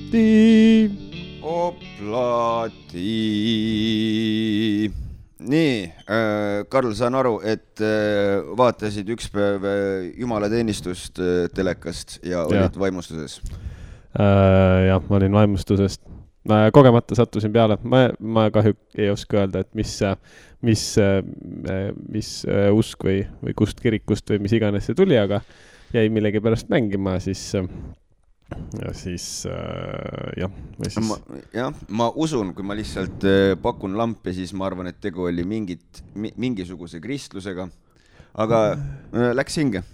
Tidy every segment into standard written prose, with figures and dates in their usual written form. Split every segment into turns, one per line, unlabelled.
Oplati. Nii, Karl, saan aru, et vaatasid üks päev jumalateenistust telekast ja olid vaimustuses.
Jah, ma olin vaimustusest. Kogemata sattusin peale. Ma kahjuks ei oska öelda, et mis usk või kust kirikust või mis iganes see tuli, aga jäi millegi pärast mängima, siis
ma usun, kui ma lihtsalt pakun lampi, siis ma arvan, et tegu oli mingisuguse kristlusega, aga läks hinge.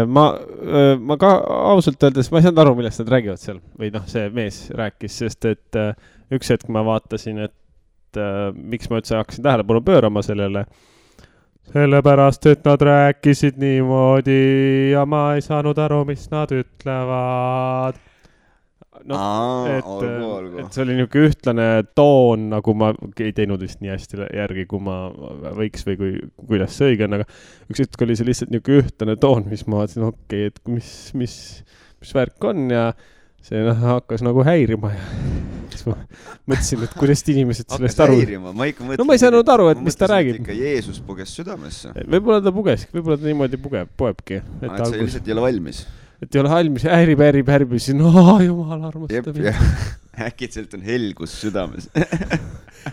Ma ka ausalt öeldes, ma ei saanud aru, millest nad räägivad seal, või see mees rääkis, sest et üks hetk ma vaatasin, et miks ma üldse hakkasin tähelepanu pöörama sellele, sellepärast, et nad rääkisid niimoodi ja ma ei saanud aru, mis nad ütlevad. Et see oli niisugune ühtlane toon, nagu ma ei teinud vist nii hästi järgi, kui ma võiks või kuidas see õige on, aga üks hetk oli see lihtsalt niisugune ühtlane toon, mis ma vaatasin, okei, et mis värk on ja see hakkas nagu häirima ja siis ma mõtlesin, et kuidas inimesed sellest aru...
Ma
ei saanud aru, et mis ta räägib.
Ikka Jeesus puges südamesse.
Võib-olla ta võib-olla ta niimoodi poebki.
Et see lihtsalt ei ole valmis.
Et ei ole valmis, häärib, siis jumal armastab.
Äkitselt on helgus südames.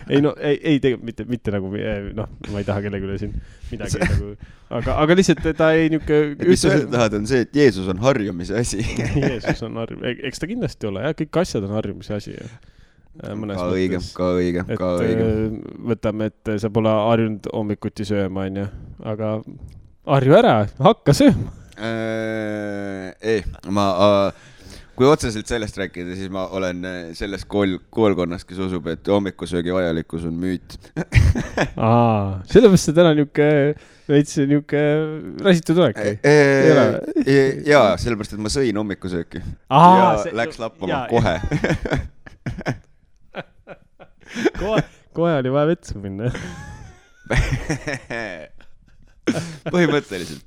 ei tegelikult mitte nagu, ma ei taha kellegi üle siin midagi nagu, aga lihtsalt ta ei niuke...
Mis öelda tahad on see, et Jeesus on harjumise asi.
Jeesus on harjumise, eks ta kindlasti ole, kõik asjad on harjumise asi.
Ka õige.
Võtame, et sa pole harjunud hommikuti sööma, aga harju ära, hakka sööma.
Kui otseselt sellest rääkida, siis ma olen selles koolkonnas, kes usub, et hommikusöögi vajalikkus on müüt.
Sellepärast see täna niuke rasitud olek.
Jaa, sellepärast, et ma sõin hommikusööki ja läks lappama kohe.
Kohe oli vaja vetsu minna.
Põhimõtteliselt.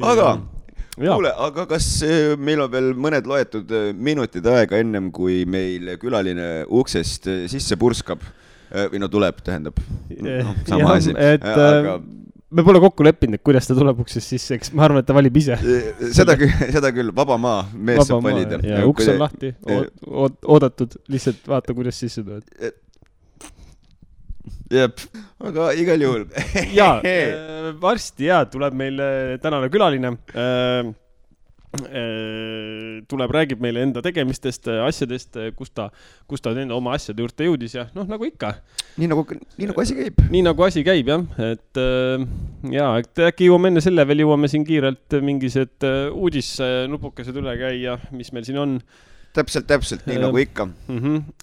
Aga kas meil on veel mõned loetud minutid aega ennem, kui meil külaline uksest sisse purskab või tuleb, tähendab sama asi.
Me pole kokku leppinud, kuidas ta tuleb uksest sisse, eks ma arvan, et ta valib ise.
Seda küll, vaba maa, mees saab valida.
Ja uks on lahti, oodatud, lihtsalt vaata, kuidas sisse tuleb.
Jep, aga igal juhul.
Varsti tuleb meil tänane külaline. Tuleb, räägib meile enda tegemistest, asjadest, kus ta enda oma asjade juurde jõudis ja nagu ikka.
Nii nagu asi käib.
Nii nagu asi käib, jah. Et äkki enne selle veel jõuame siin kiirelt mingised uudisnupukesed üle käia, mis meil siin on.
Täpselt, nii nagu ikka.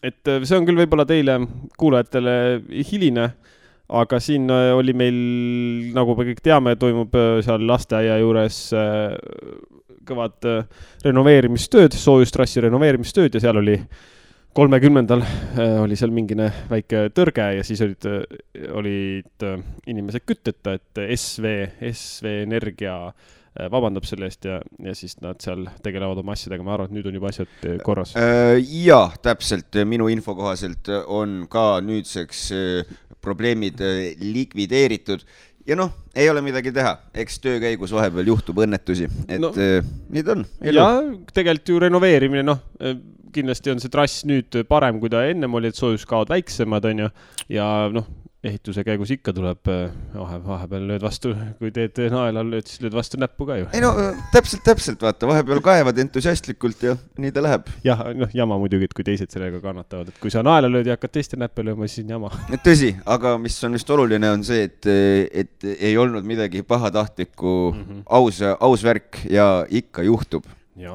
Et see on küll võib-olla teile kuulajatele hiline, aga siin oli meil, nagu me kõik teame, toimub seal lasteaia juures kõvad renoveerimistööd, soojustrassi renoveerimistööd ja seal oli 30. oli seal mingine väike tõrge ja siis olid inimesed kütteta, et SV Energia vabandab selle eest ja siis nad seal tegelevad oma asjadega. Ma arvan, et nüüd on juba asjad korras.
Jaa, täpselt. Minu info kohaselt on ka nüüdseks probleemid likvideeritud. Ja ei ole midagi teha. Eks töö käigus vahepeal juhtub õnnetusi. Et nii on.
Ja tegelikult ju renoveerimine, kindlasti on see trass nüüd parem, kui ta ennem oli, et soojuskaod väiksemad on ja ehituse käigus ikka tuleb vahepeal lööd vastu, kui teed naela lööd, siis lööd vastu näppu ka ju.
Täpselt, vaata, vahepeal kaevad entusiastlikult ja nii ta läheb.
Jah, jama muidugi, et kui teised sellega kannatavad, et kui sa naela lööd ja hakkad teiste näppe lööma, siis on jama.
Tõsi, aga mis on just oluline on see, et ei olnud midagi pahatahtlikku, aus värk ja ikka juhtub.
Jah.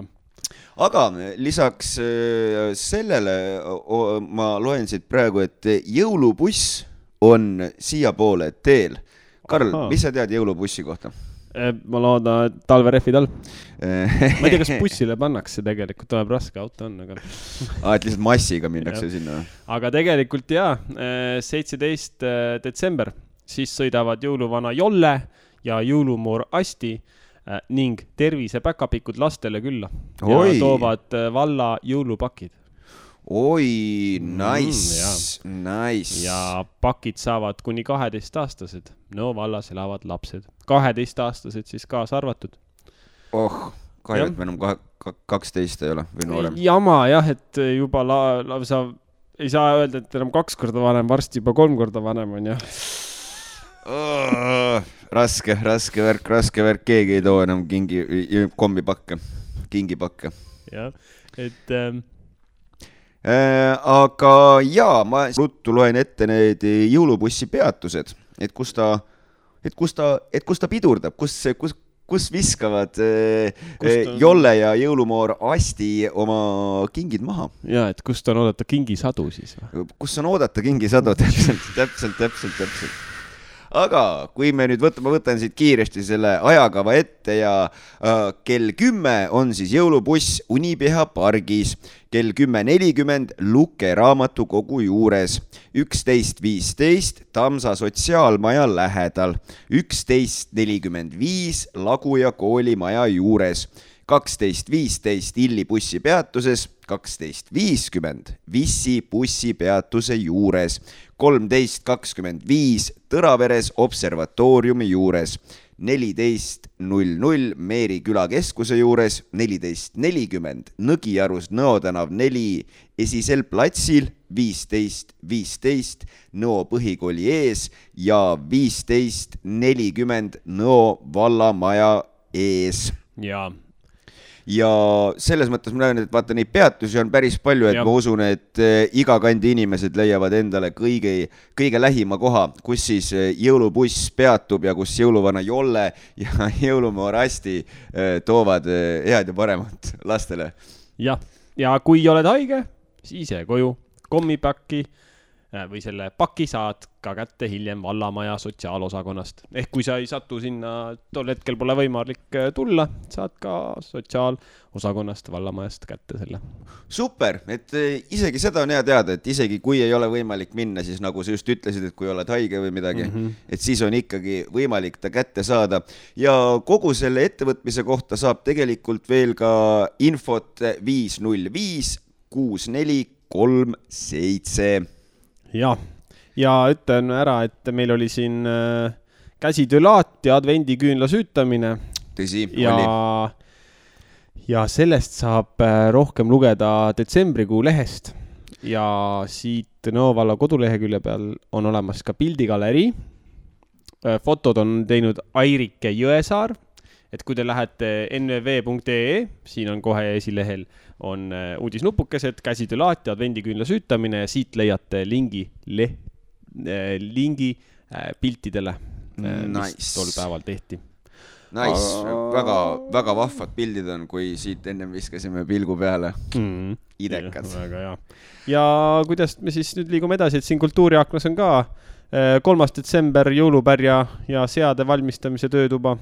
Aga lisaks sellele ma loen siit praegu, et jõulubuss on siia poole teel. Karl, mis sa tead jõulubussi kohta?
Ma loodan, et talverehvid all. Ma ei tea, kas bussile pannakse tegelikult, tuleb raske auto on. Aga...
et lihtsalt massiga minnakse sinna.
Aga tegelikult 17. detsember, siis sõidavad jõuluvana Jolle ja jõulumoor Asti ning tervisepäkapikud lastele külla
Oi.
ja toovad valla jõulupakid.
Oi, nice, nice.
Ja pakid saavad kuni 12-aastased. No vallas elavad lapsed. 12-aastased siis kaasa arvatud.
Kahju, et me enam 12 ei ole või noorem.
Jama jah, et juba sa ei saa öelda, et enam 2 korda vanem, varsti juba 3 korda vanem on jah.
Raske värk, keegi ei too enam kingipakke.
Jah, et...
aga jaa, ma ruttu loen ette need jõulubussi peatused, et kus ta pidurdab, kus viskavad Jolle ja jõulumoor Asti oma kingid maha.
Ja, et kust on oodata kingisadu siis?
Kus on oodata kingisadu, täpselt. Aga kui me nüüd ma võtan siit kiiresti selle ajakava ette ja kell 10 on siis jõulubuss Unipeha pargis, kell 10.40 Luke raamatukogu juures, 11.15 Tamsa sotsiaalmaja lähedal, 11.45 Laguja koolimaja juures, 12.15 Illi bussipeatuses, 12.50 Vissi bussipeatuse juures, 13.25 Tõraveres observatooriumi juures, 14.00 Meeri külakeskuse juures, 14.40 Nõgiarus Nõo tänav 4 esisel platsil, 15.15 Nõo põhikooli ees ja 15.40 Nõo vallamaja ees. Ja selles mõttes ma näen, et vaata neid peatusi on päris palju, et ma usun, et iga kandi inimesed leiavad endale kõige lähima koha, kus siis jõulubuss peatub ja kus jõuluvana Jolle ja jõulumoor Asti toovad head ja paremat lastele.
Ja kui oled haige, siis koju kommipakki või selle paki saad ka kätte hiljem vallamaja sotsiaalosakonnast. Ehk kui sa ei satu sinna, tol hetkel pole võimalik tulla, saad ka sotsiaalosakonnast vallamajast kätte selle.
Super, et isegi seda on hea teada, et isegi kui ei ole võimalik minna, siis nagu sa just ütlesid, et kui oled haige või midagi, et siis on ikkagi võimalik ta kätte saada. Ja kogu selle ettevõtmise kohta saab tegelikult veel ka infot 505 6437.
Ja ütlen ära, et meil oli siin käsitöölaat ja advendiküünla süütamine.
Tõsi,
oli. Ja sellest saab rohkem lugeda detsembrikuu lehest. Ja siit Nõo valla kodulehekülje peal on olemas ka pildigalerii. Fotod on teinud Airike Jõesaar. Et kui te lähete nvv.ee, siin on kohe esilehel, on uudisnupukesed, käsitöölaat ja advendiküünla süütamine ja siit leiate lingi piltidele, mis tol päeval tehti.
Nice, väga vahvad pildid on, kui siit ennem viskasime pilgu peale. Idekad.
Väga hea. Ja kuidas me siis nüüd liigume edasi, et siin kultuuriaknas on ka 3. detsember jõulupärja ja seade valmistamise töötuba.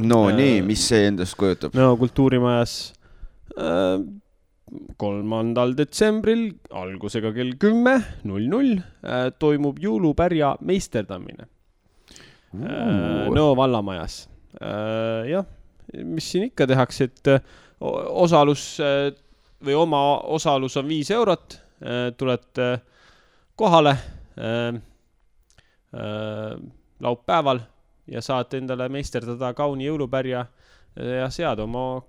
No nii, mis see endast kujutab?
No kultuurimajas 3. detsembril algusega kell 10.00 toimub jõulupärja meisterdamine Nõo vallamajas. Jah, mis siin ikka tehakse, et osalus või oma osalus on 5 eurot, tulete kohale laupäeval ja saate endale meisterdada kauni jõulupärja ja seada oma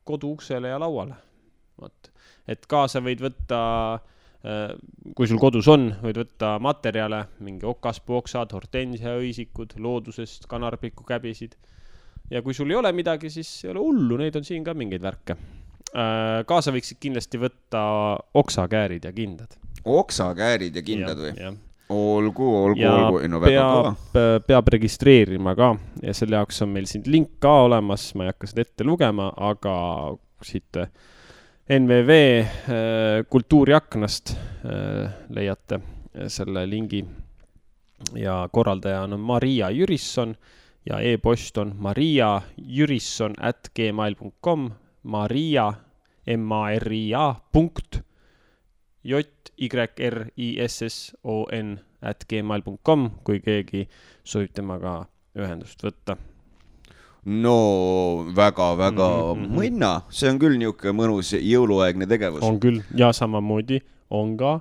kodu uksele ja lauale. Et kaasa võid võtta, kui sul kodus on, võid võtta materjale, mingi okaspuoksad, hortensia õisikud, loodusest, kanarpiku käbisid. Ja kui sul ei ole midagi, siis ei ole hullu, neid on siin ka mingeid värke. Kaasa võiksid kindlasti võtta oksakäärid ja kindad.
Oksakäärid ja kindad või?
Ja.
Olgu.
No, peab registreerima ka ja selle jaoks on meil siin link ka olemas, ma ei hakka seda ette lugema, aga siit NVV kultuuriaknast leiate selle lingi ja korraldaja on Maria Jürisson ja e-post on mariajürisson@gmail.com maria.jyrisson@gmail.com, kui keegi soovib temaga ühendust võtta.
no väga-väga mõnna, see on küll niisugune mõnus jõuluaegne tegevus.
On küll, ja samamoodi on ka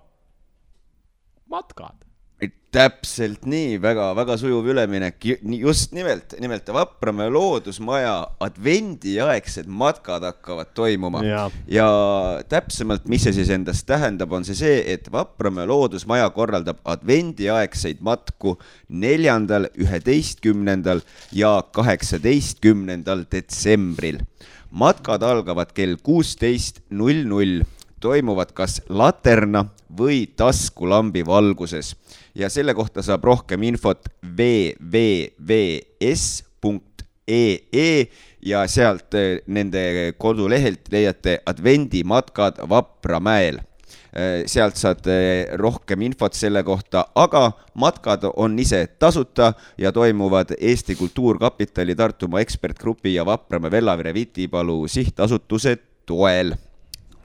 matkad.
Täpselt nii, väga sujuv üleminek, just nimelt Vapramäe loodusmaja advendiaegsed matkad hakkavad toimuma ja täpsemalt, mis see siis endast tähendab, on see, et Vapramäe loodusmaja korraldab advendiaegseid matku 4., 11. ja 18. detsembril. Matkad algavad kell 16:00, toimuvad kas laterna või taskulambi valguses ja selle kohta saab rohkem infot www.es.ee ja sealt nende kodulehelt leiate advendimatkad Vapramäel. Sealt saad rohkem infot selle kohta, aga matkad on ise tasuta ja toimuvad Eesti Kultuurkapitali, Tartumaa ekspertgrupi ja Vapramäe Vellavere Vitipalu sihtasutuse toel.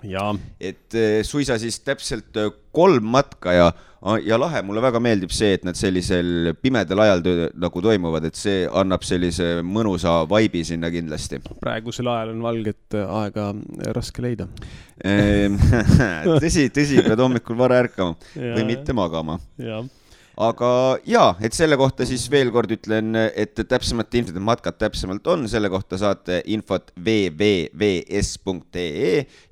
Ja.
Et suisa siis täpselt 3 matka ja lahe, mulle väga meeldib see, et nad sellisel pimedal ajal nagu toimuvad, et see annab sellise mõnusa vaibi sinna kindlasti.
Praegusel ajal on valget aega raske leida.
Tõsi, pead hommikul vara ärkama või mitte magama. Aga et selle kohta siis veel kord ütlen, et täpsemalt infot, et matkad täpsemalt on, selle kohta saate infot www.es.ee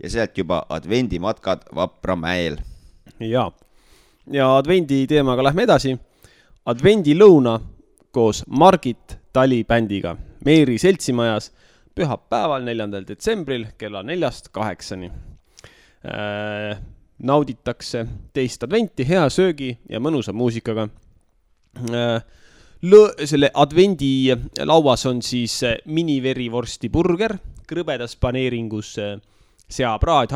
ja sealt juba advendimatkad Vapramäel.
Ja advendi teemaga lähme edasi. Advendilõuna koos Margit Tali bändiga Meeri seltsimajas pühapäeval 4. detsembril kella 4-8. Nauditakse teist adventi hea söögi ja mõnusa muusikaga. Selle advendi lauas on siis miniverivorsti burger, krõbedas paneeringus seapraad,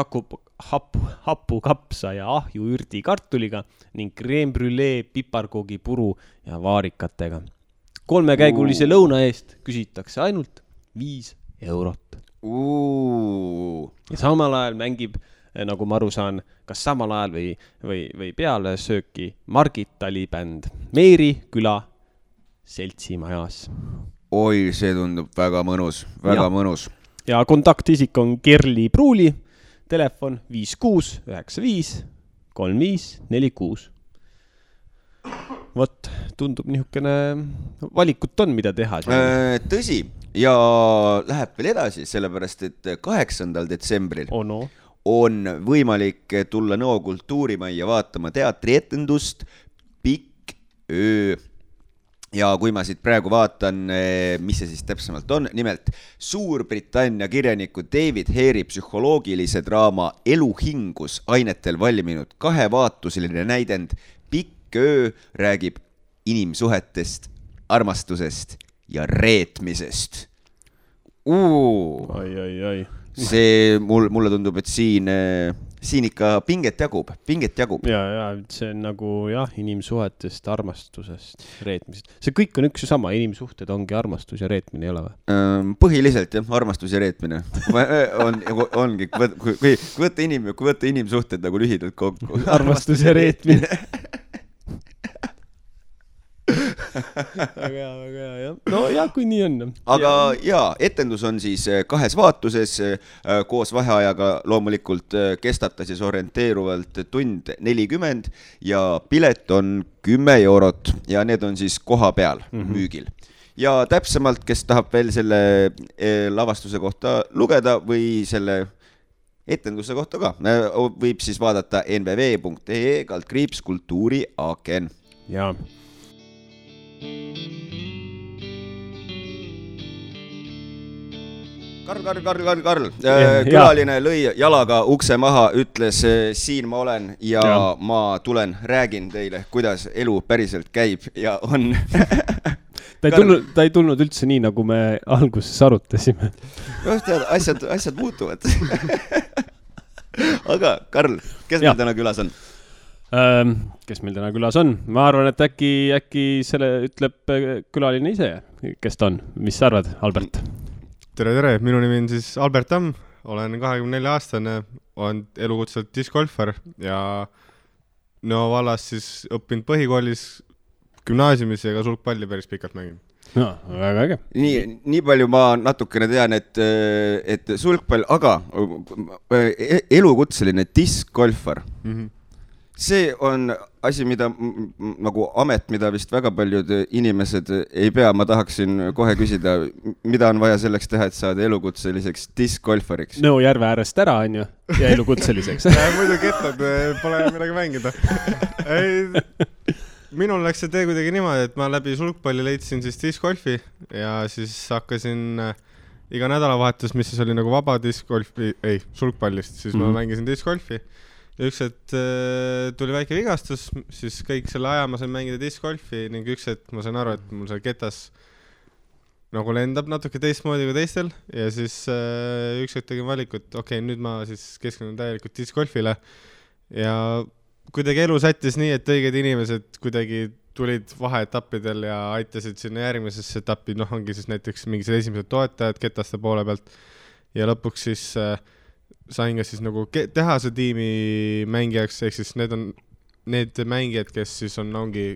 hapukapsa ja ahju ürdi kartuliga ning crème brûlée piparkoogi puru ja vaarikatega. 3-käigulise lõuna eest küsitakse ainult 5 eurot. Ja samal ajal mängib, nagu ma aru saan, kas samal ajal või peale sööki Margit Tali bänd Meeri küla seltsimajas.
Oi, see tundub väga mõnus, mõnus.
Ja kontaktisik on Kerli Pruuli, telefon 5695 3546. Vot, tundub niisugune valikut on, mida teha.
Tõsi, ja läheb veel edasi, sellepärast, et 8. detsembril on võimalik tulla Nõo kultuurimajja vaatama teatrietendust Pikk öö. Ja kui ma siit praegu vaatan, mis see siis täpsemalt on, nimelt Suurbritannia kirjaniku David Hare'i psühholoogilise draama Eluhingus ainetel valminud 2-vaatuseline näidend Pikk öö räägib inimsuhetest, armastusest ja reetmisest.
Ai.
See mulle tundub, et siin ikka pinget jagub.
Ja see on nagu inimsuhetest, armastusest, reetmisest. See kõik on üks ja sama, inimsuhted ongi armastus ja reetmine, ei ole või?
Põhiliselt armastus ja reetmine ongi, kui võtta inimsuhted nagu lühidalt kokku.
Armastus ja reetmine. Väga hea. No kui nii on.
Aga etendus on siis 2 vaatuses koos vaheajaga loomulikult kestab ta siis orienteeruvalt tund 40 ja pilet on 10 eurot ja need on siis koha peal müügil. Ja täpsemalt, kes tahab veel selle lavastuse kohta lugeda või selle etenduse kohta ka, võib siis vaadata nvv.ee/kultuuriaken.
Jaa.
Karl. Külaline lõi jalaga ukse maha, ütles siin ma olen ja ma tulen, räägin teile, kuidas elu päriselt käib ja on.
Ta ei tulnud üldse nii, nagu me alguses arutasime.
Asjad muutuvad. Aga Karl, kes meil täna külas on?
Kes meil täna külas on? Ma arvan, et äkki selle ütleb külaline ise, kes ta on. Mis sa arvad, Albert?
Tere, minu nimi on siis Albert Tamm, olen 24-aastane, olen elukutselt discgolfer ja Nõo vallas siis õppinud põhikoolis, gümnaasiumis ja ka sulgpalli päris pikalt mängin.
No, väga äge.
Nii palju ma natukene tean, et sulgpall, aga elukutseline diskgolfar, see on asi, mida nagu amet, mida vist väga paljud inimesed ei pea. Ma tahaksin kohe küsida, mida on vaja selleks teha, et saada elukutseliseks diskgolfariks?
Nõo järve äärest ära, on ju, ja elukutseliseks.
Muidu kettad, pole midagi mängida. Minul läks see tee kuidagi niimoodi, et ma läbi sulgpalli leidsin siis diskgolfi ja siis hakkasin iga nädalavahetus, mis siis oli nagu vaba diskgolfi, sulgpallist, siis ma mängisin diskgolfi. Ja üks hetk tuli väike vigastus, siis kõik selle aja ma sain mängida diskgolfi ning üks hetk ma sain aru, et mul see ketas nagu lendab natuke teistmoodi kui teistel ja siis üks hetk tegin valikut, okei, nüüd ma siis keskendun täielikult diskgolfile ja kuidagi elu sättis nii, et õiged inimesed kuidagi tulid vaheetappidel ja aitasid sinna järgmisesse etappi, ongi siis näiteks mingid esimesed toetajad ketaste poole pealt ja lõpuks siis sain ka siis nagu tehase tiimi mängijaks, ehk siis need on need mängijad, kes siis ongi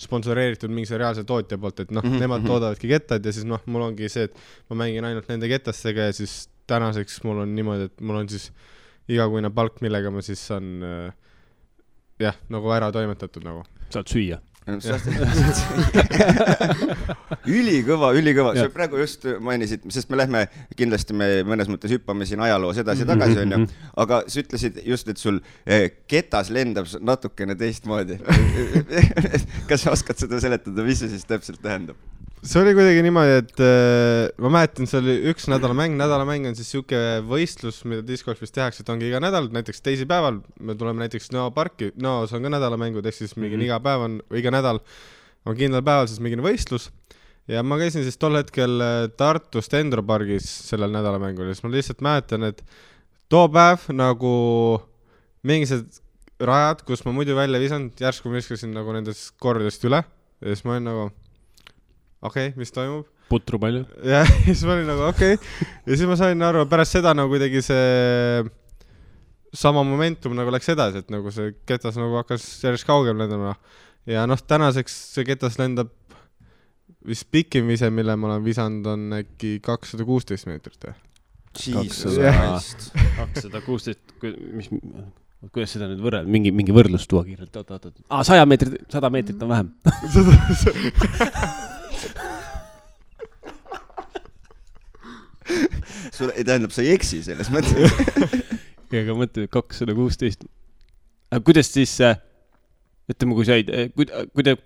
sponsoreeritud mingi reaalse tootja poolt, et nemad toodavadki kettad ja siis mul ongi see, et ma mängin ainult nende ketastega ja siis tänaseks mul on niimoodi, et mul on siis igakuine palk, millega ma siis saan nagu ära toimetatud nagu.
Saad süüa.
Ülikõva. Sa praegu just mainisid, sest me lähme, kindlasti me mõnes mõttes hüppame siin ajaloos edasi tagasi, on ju, aga sa ütlesid just, et sul ketas lendab natukene teistmoodi. Kas sa oskad seda seletada, mis see siis täpselt tähendab?
See oli kuidagi niimoodi, et ma mäletan, see oli üks nädalamäng on siis siuke võistlus, mida diskgolfis tehakse, et ongi iga nädal, näiteks teisipäeval me tuleme näiteks Nõo parki, Nõos on ka nädalamängud, ehk siis mingi iga päev on, iga nädal on kindlal päeval siis mingi võistlus ja ma käisin siis tol hetkel Tartus Dendro pargis sellel nädalamängul ja siis ma lihtsalt mäletan, et too päev nagu mingised rajad, kus ma muidu välja visanud, järsku ma viskasin nagu nendest kordadest üle ja siis ma olin nagu okei, mis toimub?
Putru palju.
Ja siis ma olin nagu okei. Ja siis ma sain aru, pärast seda nagu kuidagi see sama momentum nagu läks edasi, et nagu see ketas nagu hakkas järjest kaugem lendama. Ja tänaseks see ketas lendab vist pikim vise, mille ma olen visanud, on äkki 216 meetrit.
216, kuidas seda nüüd võrrelda? Mingi võrdlus tuua kiirelt. 100 meetrit on vähem.
Sul ei tähendab, sa ei eksi selles mõttes.
Aga mõtle, 216. Kuidas siis, ütleme, kui said,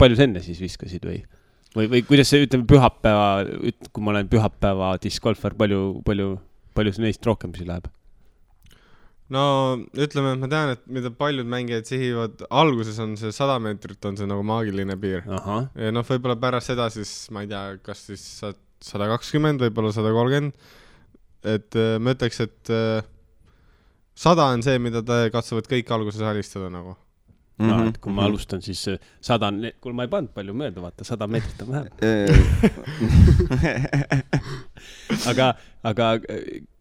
palju sa enne siis viskasid või kuidas see, ütleme, pühapäeva, kui ma olen pühapäeva diskgolfar, palju see neist rohkem siis läheb?
No, ütleme, ma tean, et mida paljud mängijad sihivad, alguses on see 100 meetrit, on see nagu maagiline piir.
Aha.
Ja võib-olla pärast seda siis, ma ei tea, kas siis 120, võib-olla 130, et ma ütleks, et 100 on see, mida ta katsuvad kõik alguses alistada nagu.
Et kui ma alustan, siis 100, kui ma ei pannud palju mööda, vaata, 100 meetrit on vähem. Aga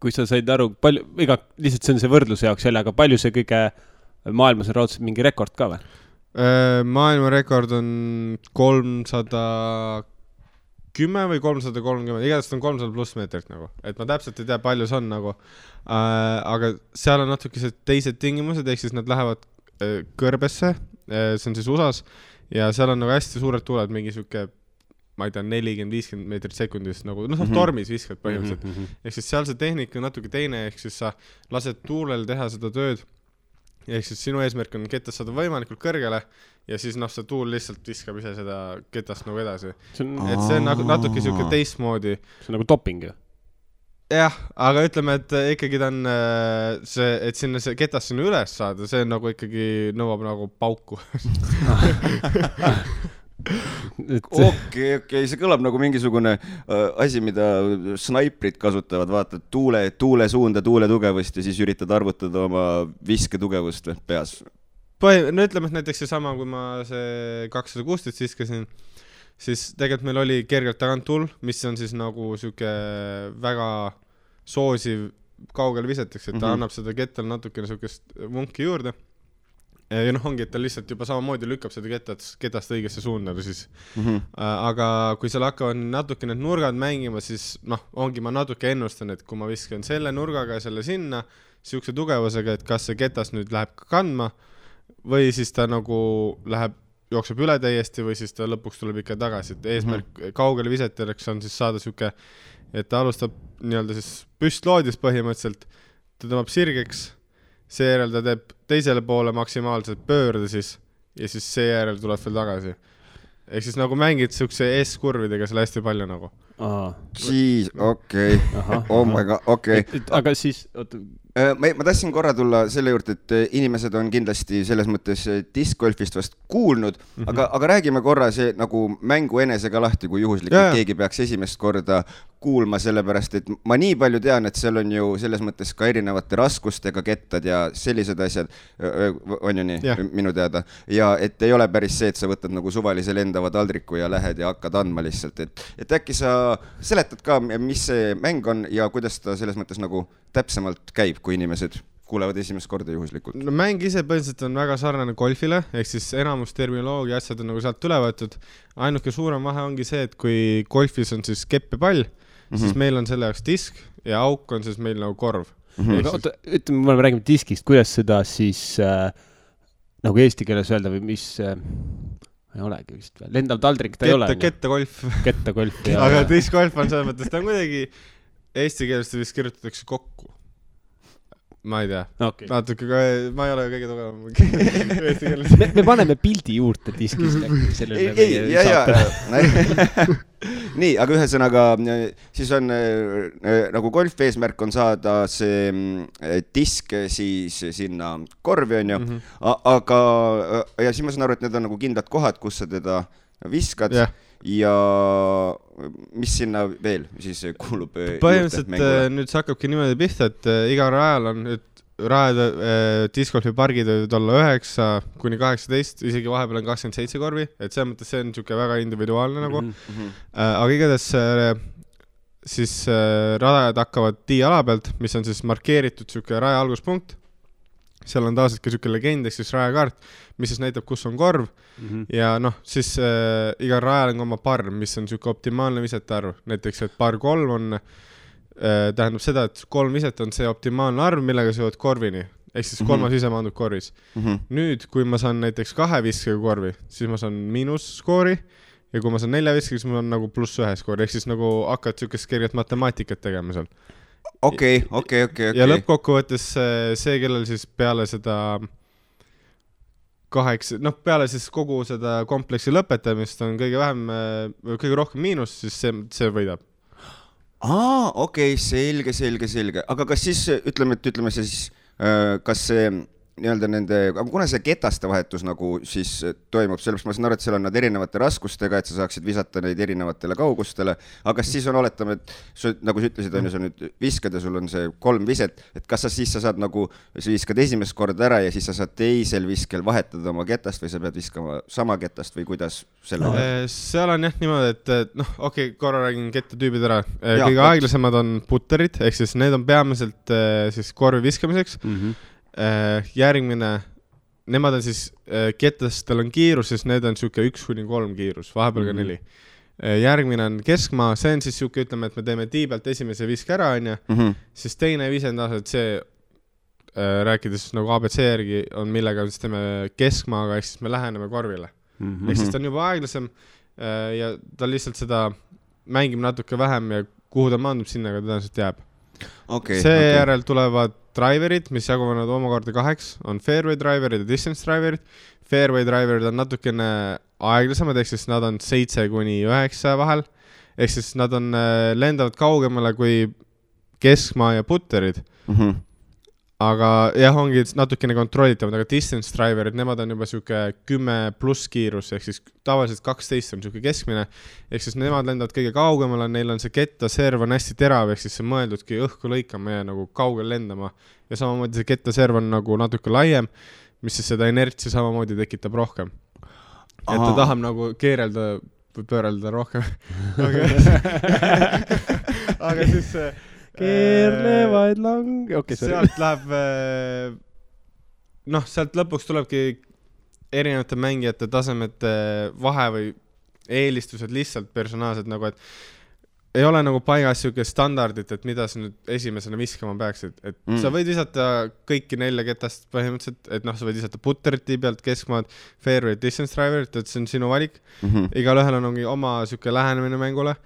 kui sa said aru, lihtsalt see on see võrdluse jaoks jälle, aga palju see kõige maailmas on raudselt mingi rekord ka või?
Maailma rekord on 310 või 330, igatahes on 300 pluss meetrit nagu, et ma täpselt ei tea, palju see on nagu, aga seal on natuke teised tingimused, ehk siis nad lähevad kõrbesse, see on siis USAs ja seal on nagu hästi suured tuuled, mingi siuke, ma ei tea, 40-50 meetrit sekundis nagu, tormis viskad põhimõtteliselt. Ehk siis seal see tehnika on natuke teine, ehk siis sa lased tuulel teha seda tööd, ehk siis sinu eesmärk on ketast saada võimalikult kõrgele ja siis see tuul lihtsalt viskab ise seda ketast nagu edasi. Et see on natuke siuke teistmoodi.
See on nagu doping ju?
Jah, aga ütleme, et ikkagi ta on see, et sinna see ketas sinna üles saada, see nagu ikkagi nõuab nagu pauku.
Okei, see kõlab nagu mingisugune asi, mida snaiprid kasutavad, vaatad tuule suunda, tuule tugevust ja siis üritad arvutada oma viske tugevust peas.
No ütleme, et näiteks seesama, kui ma see 216 viskasin, siis tegelikult meil oli kergelt tagant tuul, mis on siis nagu siuke väga soosiv kaugel viseteks, et ta annab seda kettal natukene siukest vunki juurde. ja noh, ongi, et ta lihtsalt juba samamoodi lükkab seda ketast õigesse suunda siis. Aga kui seal hakkavad natuke need nurgad mängima, siis noh, ongi ma natuke ennustan, et kui ma viskan selle nurgaga ja selle sinna, siukse tugevusega, et kas see ketas nüüd läheb kandma või siis ta nagu jookseb üle täiesti või siis ta lõpuks tuleb ikka tagasi, et eesmärk kaugele visetajaks on siis saada siuke, et ta alustab nii-öelda siis püstloodis põhimõtteliselt, ta tõmbab sirgeks, seejärel ta teeb teisele poole maksimaalselt pöörde siis ja siis seejärel tuleb veel tagasi. Ehk siis nagu mängid siukse S-kurvidega seal hästi palju nagu.
Siis, okei. Oh my god, okei.
Aga siis...
Ma tahtsin korra tulla selle juurde, et inimesed on kindlasti selles mõttes discgolfist vast kuulnud, aga räägime korra see nagu mängu enesega lahti, kui juhuslikult keegi peaks esimest korda kuulma, sellepärast, et ma nii palju tean, et seal on ju selles mõttes ka erinevate raskustega kettad ja sellised asjad, on ju nii, minu teada. Ja et ei ole päris see, et sa võtad nagu suvalise lendava taldriku ja lähed ja hakkad andma lihtsalt. Et äkki sa seletad ka, mis see mäng on ja kuidas ta selles mõttes nagu täpsemalt käib, kui inimesed kuulevad esimest korda juhuslikult?
No mäng ise põhimõtteliselt on väga sarnane golfile, ehk siis enamus terminoloogia asjad on nagu sealt üle võetud. Ainuke suurem vahe ongi see, et kui golfis on siis kepp ja pall, siis meil on selle jaoks disk ja auk on siis meil nagu korv.
Oota, ütleme, me räägime diskist, kuidas seda siis nagu eesti keeles öelda või mis... ei olegi vist veel. Lendav taldrik ta ei ole.
Kettegolf.
Kettegolf.
Aga diskgolf on selles mõttes, ta on kuidagi eesti keelest vist kirjutatakse kokku. Ma ei tea.
Okay.
Natuke, ma ei ole kõige tugevam eesti keeles.
Me paneme pildi juurde diskist.
Nii, aga ühesõnaga, siis on nagu golf eesmärk on saada see disk siis sinna korvi on ju, aga ja siis ma saan aru, et need on nagu kindlad kohad, kus sa teda viskad ja mis sinna veel siis kuulub
põhimõtteliselt nüüd see hakkabki niimoodi pihta, et iga rajal on nüüd rajade discgolfi pargid võivad olla 9 kuni 18, isegi vahepeal on 27 korvi, et selles mõttes see on niisugune väga individuaalne nagu. Aga igatahes siis radajad hakkavad tiiala pealt, mis on siis markeeritud niisugune raja alguspunkt. Seal on taas ka niisugune legend, ehk siis rajakaart, mis siis näitab, kus on korv. Ja noh, siis iga rajal on oma par, mis on niisugune optimaalne visete arv. Näiteks, et par 3 on... tähendab seda, et 3 viset on see optimaalne arv, millega sa jõuad korvini. Ehk siis 3 ise maandub korvis. Nüüd, kui ma saan näiteks 2 viskega korvi, siis ma saan miinusskoori ja kui ma saan 4 viskega, siis ma saan nagu +1 skoori. Ehk siis nagu hakkad niisugust kerget matemaatikat tegema seal.
Okei.
Ja lõppkokkuvõttes see, kellel siis peale seda 8, noh peale siis kogu seda kompleksi lõpetamist on kõige rohkem miinus, siis see võidab.
Okei, selge. Aga kas siis, ütleme see siis, kas see nii-öelda nende, aga kuna see ketaste vahetus nagu siis toimub, sellepärast ma saan aru, et seal on nad erinevate raskustega, et sa saaksid visata neid erinevatele kaugustele, aga siis on oletame, et nagu sa ütlesid, on ju, sa nüüd viskad ja sul on see 3 viset, et kas sa siis saad nagu, sa viskad esimest korda ära ja siis sa saad teisel viskel vahetada oma ketast või sa pead viskama sama ketast või kuidas selle
seal on jah niimoodi, et noh, okei, korra räägin kettatüübid ära. Kõige aeglasemad on putterid, ehk siis need on peamiselt siis korvi viskamiseks. Järgmine, nemad on siis kettastel on kiirus, siis need on siuke 1-3 kiirus, vahepeal ka 4. Järgmine on keskmaa, see on siis siuke, ütleme, et me teeme tii pealt esimese viske ära, on ju, siis teine vise on taas, et see rääkides nagu ABC järgi on millega siis teeme keskmaaga, ehk siis me läheneme korvile. Ehk siis ta on juba aeglasem ja ta lihtsalt seda mängib natuke vähem ja kuhu ta maandub sinna, aga tõenäoliselt jääb. Seejärel tulevad driverid, mis jaguvad omakorda 8, on fairway driverid ja distance driverid. Fairway driverid on natukene aeglasemad, ehk siis nad on 7-9 vahel. Ehk siis nad on lendavad kaugemale kui keskmaa ja putterid. Aga jah, ongi natukene kontrollitavad, aga distance driverid, nemad on juba siuke 10+ kiirus, ehk siis tavaliselt 12 on siuke keskmine, ehk siis nemad lendavad kõige kaugemale, neil on see kettaserv on hästi terav, ehk siis see mõeldudki õhku lõikama ja nagu kaugel lendama ja samamoodi see kettaserv on nagu natuke laiem, mis siis seda inertsi samamoodi tekitab rohkem. Et ta tahab nagu keerelda või pöörelda rohkem. Aga siis
keerlevaid lang...
sealt läheb noh, sealt lõpuks tulebki erinevate mängijate tasemete vahe või eelistused lihtsalt personaalsed nagu, et ei ole nagu paigas siuke standardit, et mida sa nüüd esimesena viskama peaksid, et sa võid visata kõiki 4 ketast põhimõtteliselt, et noh, sa võid visata putteriti pealt, keskmaad, fairway, distance driverit, et see on sinu valik. Igalühel on oma siuke lähenemine mängule,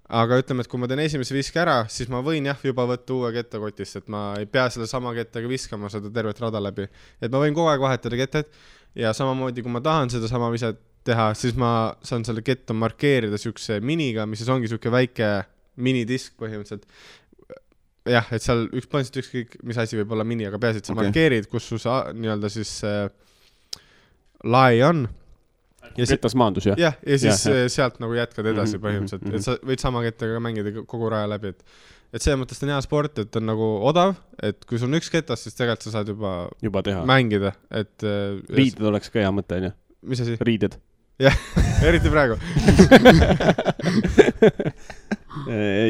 aga ütleme, et kui ma teen esimese viske ära, siis ma võin juba võtta uue ketta kotist, et ma ei pea selle sama kettaga viskama seda tervet rada läbi, et ma võin kogu aeg vahetada ketted ja samamoodi, kui ma tahan seda sama viset teha, siis ma saan selle ketta markeerida siukse miniga, mis siis ongi siuke väike minidisk põhimõtteliselt. Jah, et seal põhimõtteliselt ükskõik, mis asi võib olla mini, aga peaasi, et sa markeerid, kus su nii-öelda siis lai on.
Ketas maandus, jah?
Jah, ja siis sealt nagu jätkad edasi põhimõtteliselt, et sa võid sama kettaga mängida kogu raja läbi, et see mõttes on hea sport, et on nagu odav, et kui sul on üks ketas, siis tegelikult sa saad juba teha. Mängida, et
riided oleks ka hea mõte, on ju?
Mis asi?
Riided.
Jah, eriti praegu.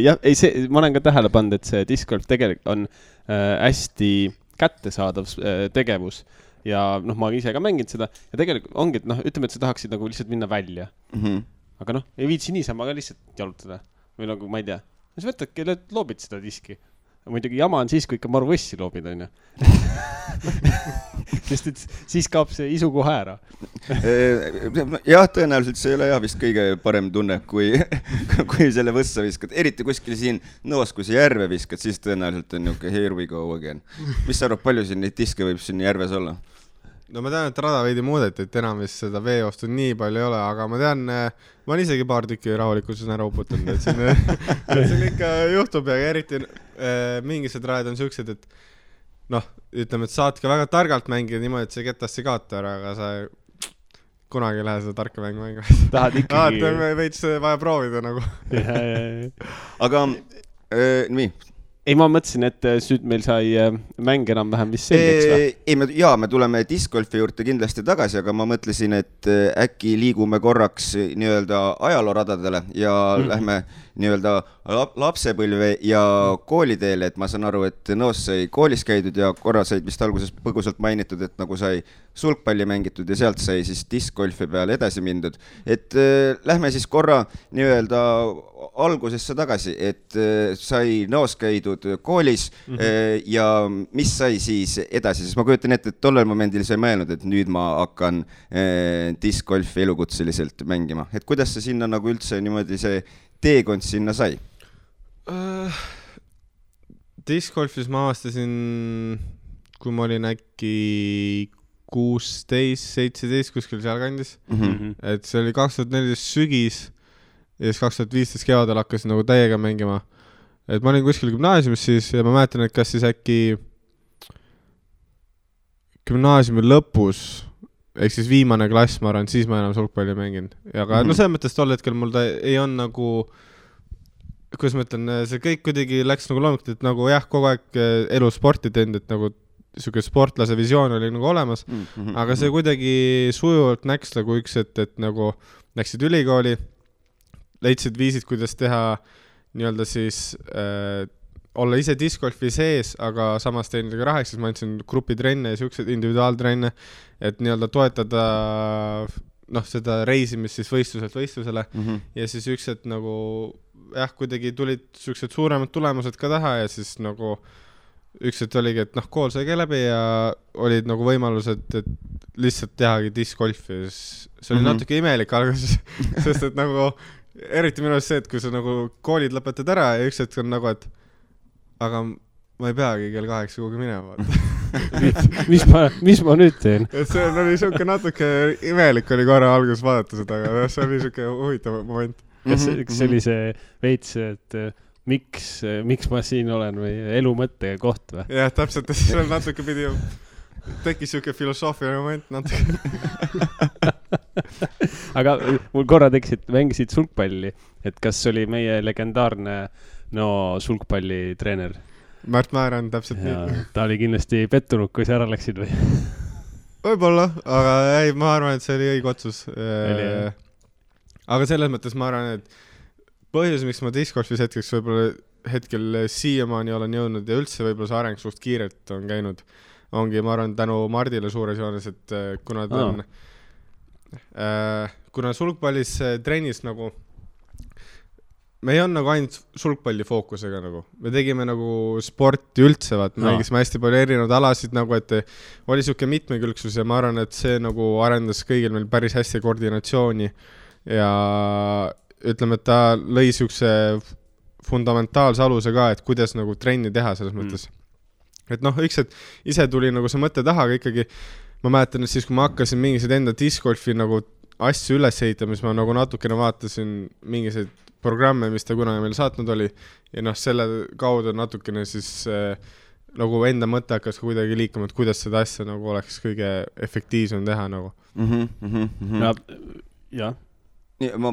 Jah, ei see, ma olen ka tähele pannud, et see discgolf tegelikult on hästi kättesaadav tegevus ja noh, ma ise ka mängin seda ja tegelikult ongi, et noh, ütleme, et sa tahaksid nagu lihtsalt minna välja. Aga noh, ei viitsi niisama ka lihtsalt jalutada või nagu, ma ei tea, sa võtadki, loobid seda diski. Muidugi jama on siis, kui ikka maru võssi loobid, on ju. Sest et siis kaob see isu kohe ära.
Jah, tõenäoliselt see ei ole vist kõige parem tunne, kui selle võssa viskad. Eriti kuskil siin noos, kui see järve viskad, siis tõenäoliselt on niuke here we go again. Mis sa arvad, palju siin neid diske võib siin järves olla?
No ma tean, et rada veidi muudeti, et enam vist seda veeostu nii palju ei ole, aga ma tean, ma olen isegi paar tükki rahulikult ära uputanud, et siin ikka juhtub ja eriti mingised rajad on siuksed, et noh, ütleme, et saad ka väga targalt mängida niimoodi, et see ketast ei kaota ära, aga sa kunagi ei lähe seda tarka mängu mängu.
Tahad ikkagi...
Veits vaja proovida nagu.
Aga nii...
Ei, ma mõtlesin, et nüüd meil sai mäng enam-vähem vist selgeks või?
Ei, me tuleme discgolfi juurde kindlasti tagasi, aga ma mõtlesin, et äkki liigume korraks nii-öelda ajalooradadele ja lähme nii-öelda lapsepõlve ja kooliteele, et ma saan aru, et noos sai koolis käidud ja korra said vist alguses põgusalt mainitud, et nagu sai sulgpalli mängitud ja sealt sai siis discgolfi peale edasi mindud. Et lähme siis korra nii-öelda algusesse tagasi, et sai noos käidud koolis ja mis sai siis edasi, sest ma kujutan ette, et tollel momendil sai mõelnud, et nüüd ma hakkan discgolfi elukutseliselt mängima. Et kuidas see sinna nagu üldse niimoodi see teekond sinna sai?
Discgolfis ma avastasin, kui ma olin äkki 16, 17 kuskil seal kandis. Et see oli 2014 sügis ja siis 2015 kevadel hakkasin nagu täiega mängima. Et ma olin kuskil gümnaasiumis siis ja ma mäletan, et kas siis äkki gümnaasiumi lõpus, ehk siis viimane klass, ma arvan, siis ma enam sulgpalli mängin. Aga no selles mõttes tol hetkel mul ta ei on nagu, kuidas ma ütlen, see kõik kuidagi läks nagu loomulikult, et nagu jah, kogu aeg elu sporti teinud, et nagu siuke sportlase visioon oli nagu olemas, aga see kuidagi sujuvalt näks nagu üks, et nagu läksid ülikooli, leidsid viisid, kuidas teha nii-öelda siis olla ise discgolfi sees, aga samas teinud ka rahaks, siis ma andsin grupitrenne ja siuksed individuaaltrenne, et nii-öelda toetada noh, seda reisimist siis võistluselt võistlusele ja siis üksed nagu jah, kuidagi tulid siuksed suuremad tulemused ka taha ja siis nagu üksed oligi, et noh, kool sai ka läbi ja olid nagu võimalused, et lihtsalt tehagi discgolfi. See oli natuke imelik alguses, sest et nagu eriti minu see, et kui sa nagu koolid lõpetad ära ja üks hetk on nagu, et aga ma ei peagi kell 8 kuhugi minema.
mis ma nüüd teen?
Et see oli siuke natuke imelik oli korra alguses vaadata seda, aga see oli siuke huvitav moment.
Kas see oli see veits, et miks ma siin olen või elu mõtte koht või?
Jah, täpselt, see natuke pidi tekkis siuke filosoofiline moment natuke.
Aga mul korra tekkisid, mängisid sulgpalli, et kas oli meie legendaarne sulgpallitreener?
Märt Määran, täpselt nii.
Ta oli kindlasti pettunud, kui sa ära läksid või?
Võib-olla, aga ei, ma arvan, et see oli õige otsus. Aga selles mõttes ma arvan, et põhjus, miks ma discgolfis hetkel siiamaani olen jõudnud ja üldse võib-olla see areng suht kiirelt on käinud, ongi, ma arvan, tänu Mardile suures joones, et kuna ta on kuna sulgpallis trennis nagu me ei on nagu ainult sulgpalli fookusega nagu. Me tegime nagu sporti üldse, mängisime hästi palju erinevaid alasid nagu, et oli siuke mitmekülgsus ja ma arvan, et see nagu arendas kõigil meil päris hästi koordinatsiooni ja ütleme, et ta lõi siukse fundamentaalse aluse ka, et kuidas nagu trenni teha selles mõttes. Et üks, et ise tuli nagu see mõte taha, aga ikkagi ma mäletan, et siis kui ma hakkasin mingised enda discgolfi nagu asju üles ehitama, siis ma nagu natukene vaatasin mingised programme, mis ta kunagi meil saatnud oli ja selle kaudu natukene siis nagu enda mõte hakkas kuidagi liikuma, et kuidas seda asja nagu oleks kõige efektiivsem teha nagu.
Jah. Ei, ma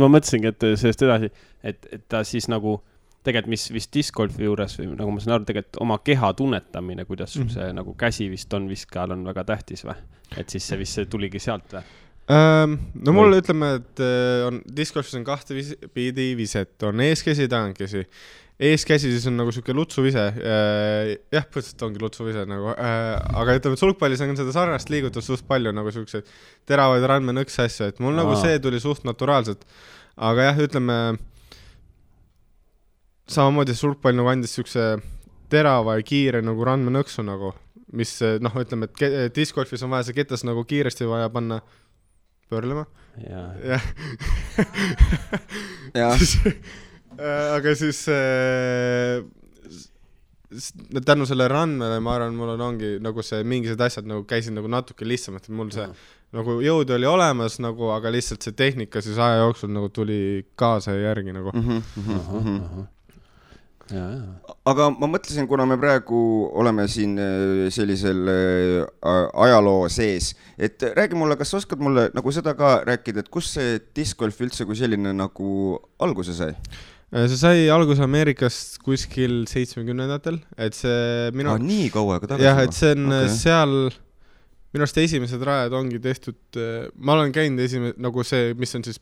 mõtlesingi, et sellest edasi, et ta siis nagu tegelikult mis vist discgolfi juures või nagu ma saan aru, tegelikult oma keha tunnetamine, kuidas see nagu käsi vist on viskajal on väga tähtis või? Et siis see vist tuligi sealt või?
No mul ütleme, et discgolfis on kahte pidi viset, on eeskäsi, tagantkäsi. Eeskäsi siis on nagu siuke lutsuvise, jah, põhiliselt ongi lutsuvise nagu, aga ütleme, et sulgpallis on seda sarnast liigutust suht palju nagu siukseid teravaid randmenõks asju, et mul nagu see tuli suht naturaalselt, aga jah, ütleme, samamoodi sulgpall nagu andis siukse terava ja kiire nagu randmenõksu nagu, mis ütleme, et discgolfis on vaja see ketas nagu kiiresti vaja panna pöörlema. Ja. Aga siis tänu selle randmele, ma arvan, mul ongi nagu see mingised asjad nagu käisid nagu natuke lihtsamalt, et mul see nagu jõud oli olemas nagu, aga lihtsalt see tehnika siis aja jooksul nagu tuli kaasa ja järgi nagu.
Aga ma mõtlesin, kuna me praegu oleme siin sellisel ajaloo sees, et räägi mulle, kas oskad mulle nagu seda ka rääkida, et kus see discgolf üldse kui selline nagu alguse sai?
See sai alguse Ameerikast kuskil 70-ndatel, et see
nii kaua aega tagasi?
Jah, et see on seal, minu arust esimesed rajad ongi tehtud, ma olen käinud nagu see, mis on siis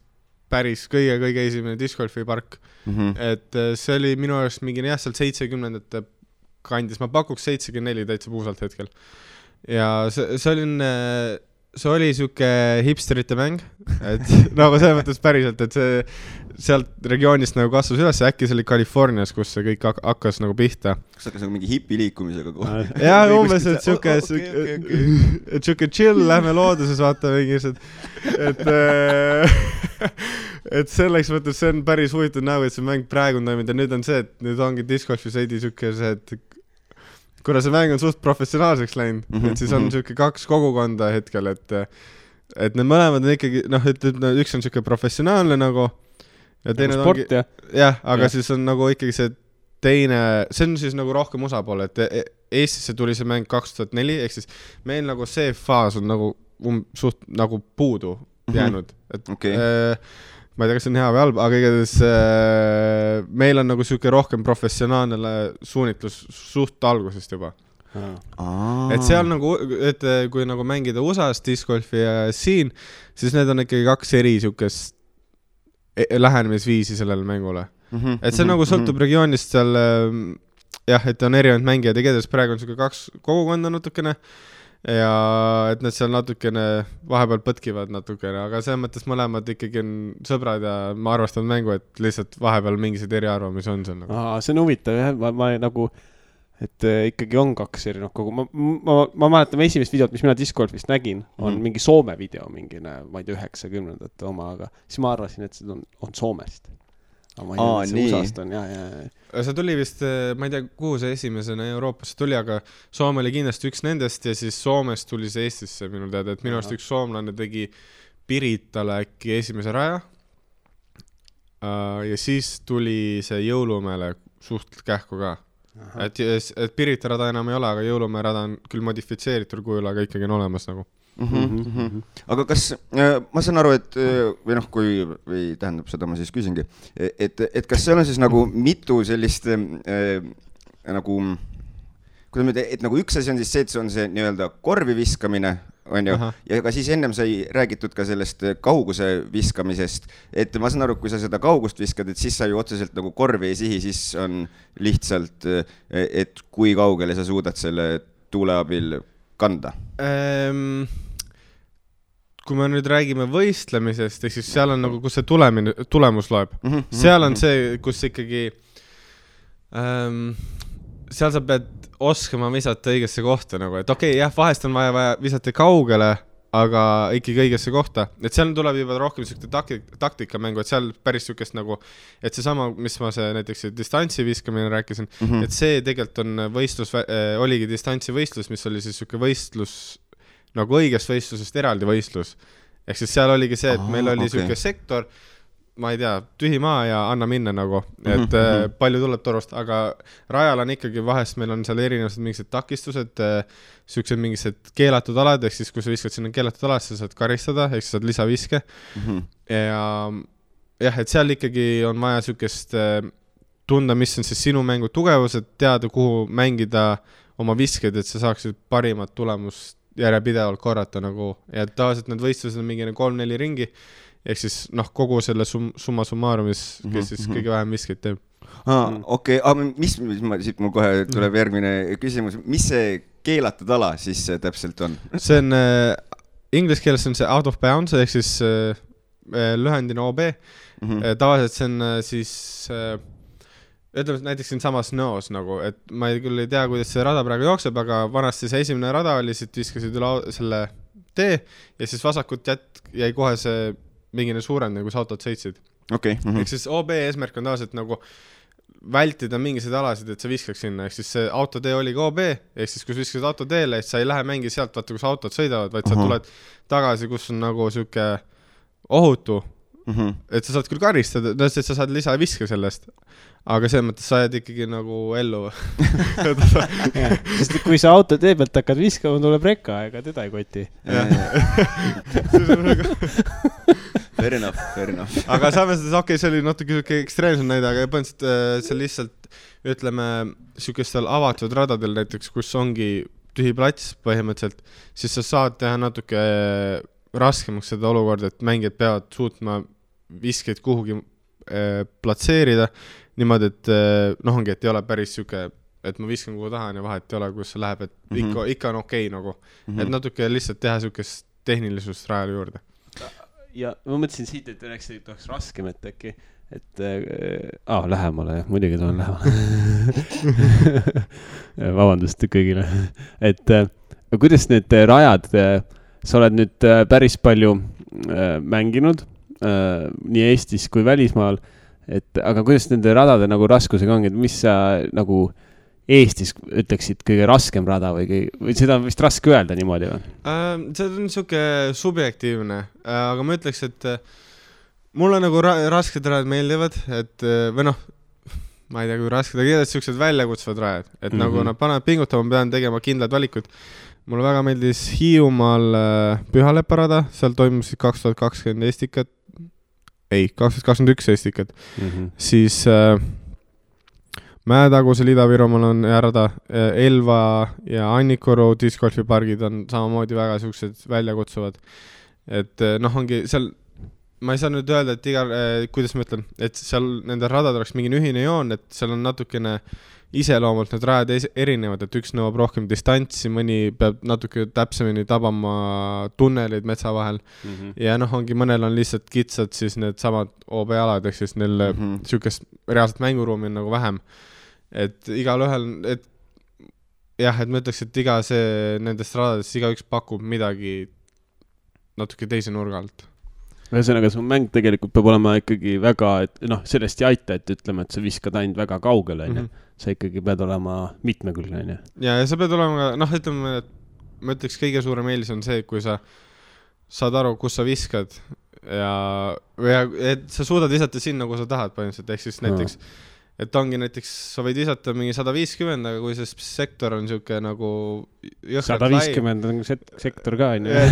päris kõige esimene discgolfi park, et see oli minu arust mingi seal 70-ndate kandis, ma pakuks 74 täitsa puusalt hetkel ja see oli siuke hipsterite mäng, et nagu selles mõttes päriselt, et see sealt regioonist nagu kasvas üles ja äkki see oli Californias, kus see kõik hakkas nagu pihta.
Kas hakkas nagu mingi hipiliikumisega kohe?
Jah, umbes, et siuke chill, lähme looduses vaata mingised, et selleks mõttes see on päris huvitav nägu, et see mäng praegu on toiminud ja nüüd on see, et nüüd ongi discgolfi seidi siuke see, et kuna see mäng on suht professionaalseks läinud, et siis on siuke 2 kogukonda hetkel, et need mõlemad on ikkagi, üks on siuke professionaalne nagu ja teine
nagu sport,
ongi, jah, aga siis on nagu ikkagi see teine, see on siis nagu rohkem osapool, et Eestisse tuli see mäng 2004, ehk siis meil nagu see faas on nagu suht nagu puudu jäänud, et ma ei tea, kas see on hea või halb, aga igatahes meil on nagu siuke rohkem professionaalne suunitlus suht algusest juba. Et seal nagu, et kui nagu mängida USA-s discgolfi ja siin, siis need on ikkagi 2 eri siukest lähenemisviisi sellele mängule. Et see nagu sõltub regioonist seal, jah, et on erinevad mängijad ja kedes praegu on siuke 2 kogukonda natukene ja et need seal natukene vahepeal põtkivad natukene, aga selles mõttes mõlemad ikkagi on sõbrad ja ma arvestan mängu, et lihtsalt vahepeal mingised eriarvamusi on seal nagu.
See on huvitav, jah, ma nagu, et ikkagi on 2 erinevat kogu. Ma mäletan esimest videot, mis mina discgolfist nägin, on mingi Soome video, mingine, ma ei tea, 90-ndate oma, aga siis ma arvasin, et see on Soomest. Ma ei tea, see USA-st on,
See tuli vist, ma ei tea, kuhu see esimesena Euroopasse tuli, aga Soome oli kindlasti üks nendest ja siis Soomest tuli see Eestisse minul teada, et minu arust üks soomlane tegi Piritale äkki esimese raja ja siis tuli see Jõulumäele suht kähku ka. Et Pirita rada enam ei ole, aga Jõulumäe rada on küll modifitseeritud kujul, aga ikkagi on olemas nagu.
Aga kas, ma saan aru, et või tähendab seda, ma siis küsingi, et kas seal on siis nagu mitu sellist nagu, et nagu üks asi on siis see, et see on see nii-öelda korvi viskamine, on ju, ja ka siis ennem sai räägitud ka sellest kauguse viskamisest, et ma saan aru, kui sa seda kaugust viskad, et siis sa ju otseselt nagu korvi ei sihi, siis on lihtsalt, et kui kaugele sa suudad selle tuule abil kanda?
Kui me nüüd räägime võistlemisest, ehk siis seal on nagu, kus see tulemus loeb. Seal on see, kus ikkagi seal sa pead oskama visata õigesse kohta nagu, et okei, jah, vahest on vaja visata kaugele, aga ikkagi õigesse kohta. Et seal tuleb juba rohkem taktikamängu, et seal päris sükest nagu, et see sama, mis ma see näiteks distantsi viskamine rääkisin, et see tegelikult on võistlus, oligi distantsi võistlus, mis oli siis süke võistlus nagu õigest võistlusest eraldi võistlus. Ehk siis seal oligi see, et meil oli süke sektor, ma ei tea, tühi maa ja anna minna nagu, et palju tuleb torust, aga rajal on ikkagi vahest, meil on seal erinevused mingised takistused, süksed mingised keelatud alad, ehk siis kui sa viskad sinna keelatud alad, sa saad karistada, ehk sa saad lisaviske. Ja jah, et seal ikkagi on vaja sükest tunda, mis on siis sinu mängu tugevused, teada, kuhu mängida oma visked, et sa saaksid parimat tulemust järjepidevalt korrata nagu, ja tavaliselt need võistlused on mingi 3-4 ringi, ehk siis kogu selle summa summarumis, kes siis kõige vähem viskeid teeb.
Okei, mis siit mul kohe tuleb järgmine küsimus, mis see keelatud ala siis täpselt on?
See on, inglise keeles on see out of bounds, ehk siis lühendina OB, tavaliselt see on siis ütleme näiteks siin samas Noos nagu, et ma küll ei tea, kuidas see rada praegu jookseb, aga vanasti see esimene rada oli, siit viskasid üle selle tee ja siis vasakut jäi kohe see mingine suurem, kui sa autod sõitsid.
Okay.
Ehk siis OB eesmärk on tavaliselt nagu vältida mingiseid alasid, et sa viskaks sinna, ehk siis see autotee oli ka OB, ehk siis kui sa viskasid autoteele, et sa ei lähe mängi sealt, vaata kus autod sõidavad, vaid sa tuled tagasi, kus on nagu süke ohutu, et sa saad küll karistada, et sa saad lisaviske sellest, aga selles mõttes sa jääd ikkagi nagu ellu.
Sest kui sa auto tee pealt hakkad viskama, tuleb rekka, ega teda ei koti.
Fair enough.
Aga samas, okei, see oli natuke ekstreemsem näide, aga põhimõtteliselt see lihtsalt, ütleme, sükestel avatud radadel näiteks, kus ongi tühi plats põhimõtteliselt, siis sa saad teha natuke raskemaks seda olukorda, et mängijad peavad suutma viskeid kuhugi platseerida, niimoodi, et ongi, et ei ole päris süke, et ma viskan kuhu tahan ja vahet ei ole, kus see läheb, et ikka on okei nagu, et natuke lihtsalt teha sükest tehnilisust rajale juurde.
Ja ma mõtlesin siit, et oleks raskem, et äkki, et lähemale, muidugi tulen lähemale. Vabandust kõigile. Et kuidas need rajad, sa oled nüüd päris palju mänginud nii Eestis kui välismaal, aga kuidas nende radade nagu raskusega ongi, et mis sa nagu Eestis ütleksid kõige raskem rada või seda on vist raske öelda niimoodi või?
See on niisugune subjektiivne, aga ma ütleks, et mulle nagu rasked rajad meeldivad, et või ma ei tea, kui rasked, aga kindlasti niisugused väljakutsuvad rajad, et nagu nad panevad pingutama, ma pean tegema kindlad valikud. Mulle väga meeldis Hiiumaal Pühalepparada, seal toimusid 2020 Eestikad, 2021 Eestikad, siis Mäetagusel Ida-Virumaal on hea rada, Elva ja Annikoru discgolfipargid on samamoodi väga siuksed väljakutsuvad, et ongi seal, ma ei saa nüüd öelda, et kuidas ma ütlen, et seal nende radad oleks mingi ühine joon, et seal on natukene iseloomult need rajad erinevad, et üks nõuab rohkem distantsi, mõni peab natuke täpsemini tabama tunneleid metsa vahel ja ongi mõnel on lihtsalt kitsad siis need samad OB-alad, ehk siis neil sükest reaalselt mänguruumi on nagu vähem, et igal ühel, et jah, et ma ütleks, et iga see nendest radadest iga üks pakub midagi natuke teise nurga alt.
Ühesõnaga, see mäng tegelikult peab olema ikkagi väga, et sellest ei aita, et ütleme, et sa viskad ainult väga kaugele, sa ikkagi pead olema mitmekülgne.
Ja sa pead olema, ütleme, et ma ütleks, kõige suurem eelis on see, kui sa saad aru, kus sa viskad ja et sa suudad visata sinna, kus sa tahad põhimõtteliselt, ehk siis näiteks et ongi näiteks, sa võid visata mingi 150, aga kui see sektor on siuke nagu
150 on sektor ka,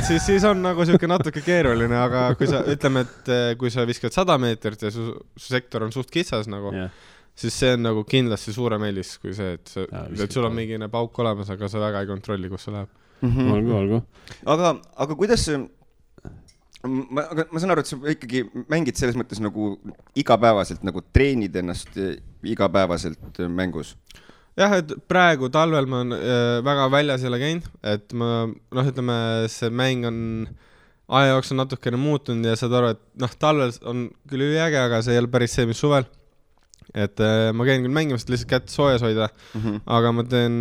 siis on nagu siuke natuke keeruline, aga kui sa, ütleme, et kui sa viskad 100 meetrit ja su sektor on suht kitsas nagu, siis see on nagu kindlasti suurem eelis kui see, et sul on mingine pauk olemas, aga sa väga ei kontrolli, kus see läheb.
Olgu.
Aga kuidas ma saan aru, et sa ikkagi mängid selles mõttes nagu igapäevaselt, nagu treenid ennast igapäevaselt mängus?
jah, et praegu talvel ma on väga väljas jälle käinud, et ma, ütleme, see mäng on aja jooksul natukene muutunud ja saad aru, et talvel on küll üliäge, aga see ei ole päris see, mis suvel. Et ma käin küll mängimas, et lihtsalt kätt soojas hoida, aga ma teen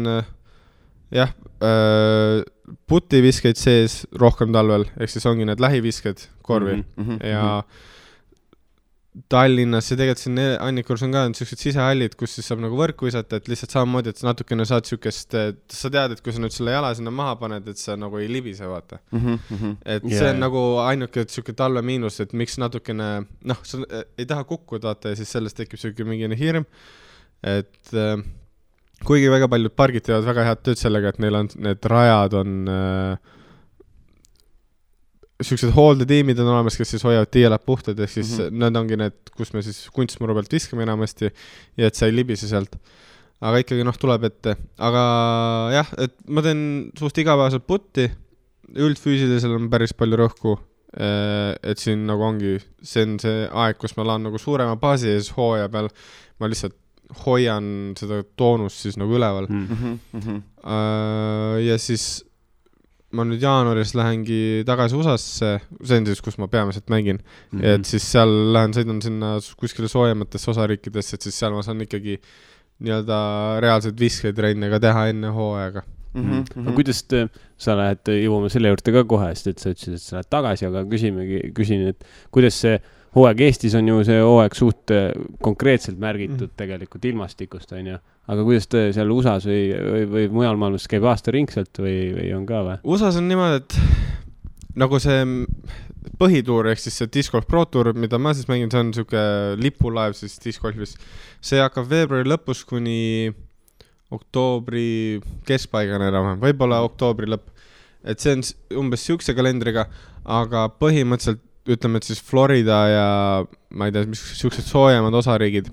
putiviskeid sees rohkem talvel, ehk siis ongi need lähivisked korvi ja Tallinnas ja tegelikult siin Annikurus on ka sellised sisehallid, kus siis saab nagu võrku visata, et lihtsalt samamoodi, et natukene saad sükest, sa tead, et kui sa nüüd selle jala sinna maha paned, et sa nagu ei libise, vaata. Et see on nagu ainuke selline talve miinus, et miks natukene, sa ei taha kukkuda, vaata, ja siis sellest tekib selline mingine hirm, et kuigi väga paljud pargid teevad väga head tööd sellega, et neil on, need rajad on sellised hooldetiimid on olemas, kes siis hoiavad tiielad puhtad, ehk siis need ongi need, kus me siis kunstmuru pealt viskame enamasti ja et sa ei libise sealt. Aga ikkagi tuleb ette. Aga jah, et ma teen suust igapäevaselt putti, üldfüüsilisel on päris palju rõhku, et siin nagu ongi, see on see aeg, kus ma laan nagu suurema baasi ja siis hooaja peal ma lihtsalt hoian seda toonust siis nagu üleval. Ja siis ma nüüd jaanuaris lähengi tagasi USA-sse, see on siis, kus ma peamiselt mängin, et siis seal sõidan sinna kuskile soojematesse osariikidesse, et siis seal ma saan ikkagi nii-öelda reaalselt visketrenne ka teha enne hooaega.
Aga kuidas sa lähed, jõuame selle juurde ka kohe, sest et sa ütlesid, et sa lähed tagasi, aga küsin, et kuidas see hooaeg Eestis on ju see hooaeg suht konkreetselt märgitud tegelikult ilmastikust, on ju. Aga kuidas te seal USA-s või mujal maailmas käib aasta ringselt või on ka või?
USA-s on niimoodi, et nagu see põhituur, ehk siis see Disc Golf Pro Tour, mida ma siis mängin, see on selline lipulaev siis Disc Golfis. See hakkab veebruari lõpus kuni oktoobri keskpaigana enam, võib-olla oktoobri lõpp. Et see on umbes siukse kalendriga, aga põhimõtteliselt ütleme, et siis Florida ja ma ei tea, mis siuksed soojemad osariigid,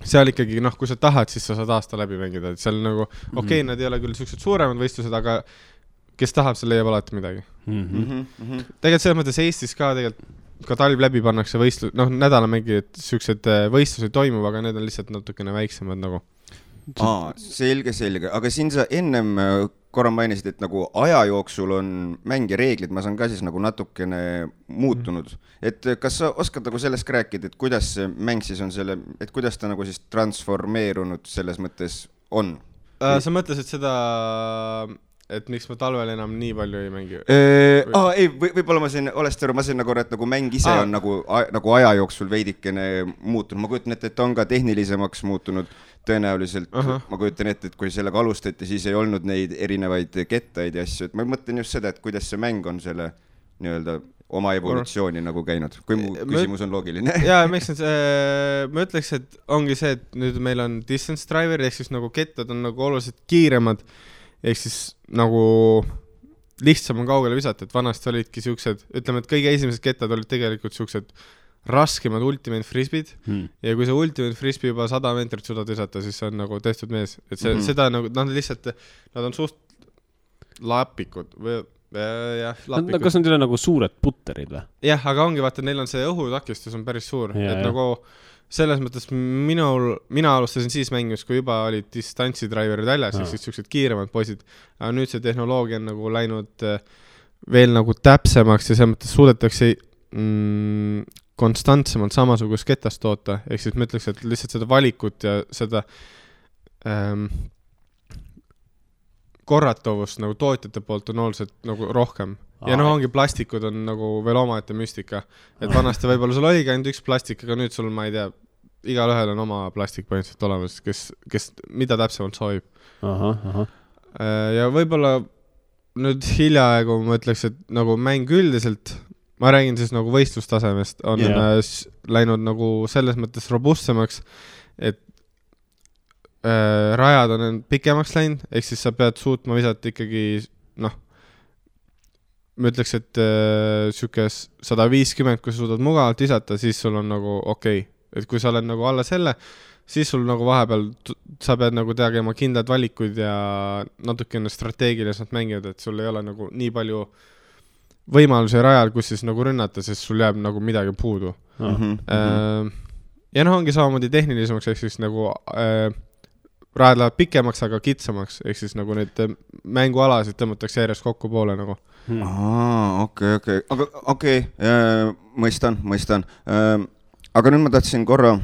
seal ikkagi, kui sa tahad, siis sa saad aasta läbi mängida, et seal nagu, okei, nad ei ole küll siuksed suuremad võistlused, aga kes tahab, see leiab alati midagi. Tegelikult selles mõttes Eestis ka tegelikult ka talv läbi pannakse võistlus, nädala mängi, et siuksed võistlused toimub, aga need on lihtsalt natukene väiksemad nagu.
Selge, aga siin sa ennem korra mainisid, et nagu aja jooksul on mängi reeglid, ma saan ka siis nagu natukene muutunud. Et kas sa oskad nagu sellest rääkida, et kuidas see mäng siis on selle, et kuidas ta nagu siis transformeerunud selles mõttes on?
Sa mõtlesid seda, et miks ma talvel enam nii palju ei mängi?
Ei, võib-olla ma sain nagu, et nagu mäng ise on nagu aja jooksul veidikene muutunud. Ma kujutan ette, et on ka tehnilisemaks muutunud tõenäoliselt. Ma kujutan ette, et kui sellega alustati, siis ei olnud neid erinevaid kettaid ja asju. Et ma mõtlen just seda, et kuidas see mäng on selle nii-öelda oma evolutsiooni nagu käinud, kui mu küsimus on loogiline.
Jaa, ma ütleks, et ongi see, et nüüd meil on distance driver, ehk siis nagu kettad on nagu oluliselt kiiremad, ehk siis nagu lihtsam on kaugele visata, et vanasti olidki siuksed, ütleme, et kõige esimesed kettad olid tegelikult siuksed raskemad ultimate frisbeed ja kui see ultimate frisbee juba 100 meetrit suudad visata, siis see on nagu tehtud mees, et see, seda nagu, lihtsalt, nad on suht lapikud või lapikud.
Kas on teile nagu suured putterid või?
Jah, aga ongi, vaata, neil on see õhutakistus on päris suur, et nagu selles mõttes mina alustasin siis mängimas, kui juba olid distantsidraiverid väljas, siis siuksed kiiremad poisid, aga nüüd see tehnoloogia on nagu läinud veel nagu täpsemaks ja selles mõttes suudetakse konstantsemalt samasugust ketast toota, ehk siis ma ütleks, et lihtsalt seda valikut ja seda korratavust nagu tootjate poolt on oluliselt nagu rohkem. Ja ongi plastikud on nagu veel omaette müstika. Et vanasti võib-olla sul oligi ainult üks plastik, aga nüüd sul, ma ei tea, igal ühel on oma plastik põhimõtteliselt olemas, kes mida täpsemalt soovib. Ja võib-olla nüüd hiljaaegu ma ütleks, et nagu mäng üldiselt, ma räägin siis nagu võistlustasemest, on läinud nagu selles mõttes robustsemaks, et rajad on pikemaks läinud, ehk siis sa pead suutma visata ikkagi, ma ütleks, et siuke 150, kui sa suudad mugavalt visata, siis sul on nagu okei. Et kui sa oled nagu alla selle, siis sul nagu vahepeal sa pead nagu tegema kindlad valikuid ja natukene strateegiliselt mängida, et sul ei ole nagu nii palju võimalusi rajal, kus siis nagu rünnata, sest sul jääb nagu midagi puudu. Ja ongi samamoodi tehnilisemaks, ehk siis nagu rajad lähevad pikemaks, aga kitsamaks, ehk siis nagu neid mängualasid tõmmatakse järjest kokku poole nagu.
Okei. Aga okei, mõistan. Aga nüüd ma tahtsin korra,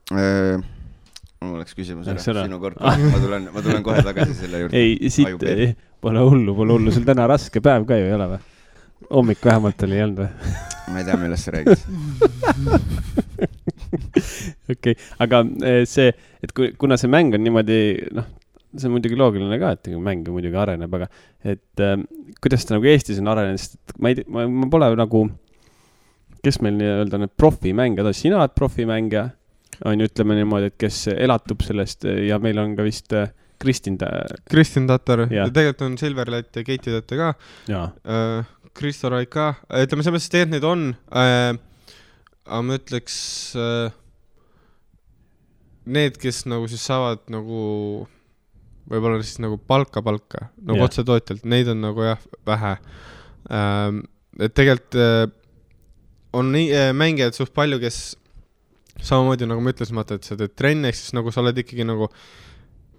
mul oleks küsimus sinu kord, ma tulen kohe tagasi selle juurde.
Ei, siit pole hullu, sul täna raske päev ka ju ei ole või? Hommik vähemalt oli jäänud või?
Ma ei tea, millest sa räägid.
Okei, aga see, et kuna see mäng on niimoodi, see on muidugi loogiline ka, et mäng muidugi areneb, aga et kuidas ta nagu Eestis on arenenud, sest ma pole nagu, kes meil nii-öelda need profimängijad on, sina oled profimängija, on ju, ütleme niimoodi, et kes elatub sellest ja meil on ka vist Kristin
Tatar ja tegelikult on Silverlight ja Keiti Tatar ka.
Jaa.
Kristo Raik ka. Ütleme, selles mõttes neid on, aga ma ütleks need, kes nagu siis saavad nagu võib-olla siis nagu palka, nagu otse tootjalt, neid on nagu jah, vähe. Et tegelikult on mängijad suht palju, kes samamoodi nagu ma ütlesin, et sa teed trenni, ehk siis nagu sa oled ikkagi nagu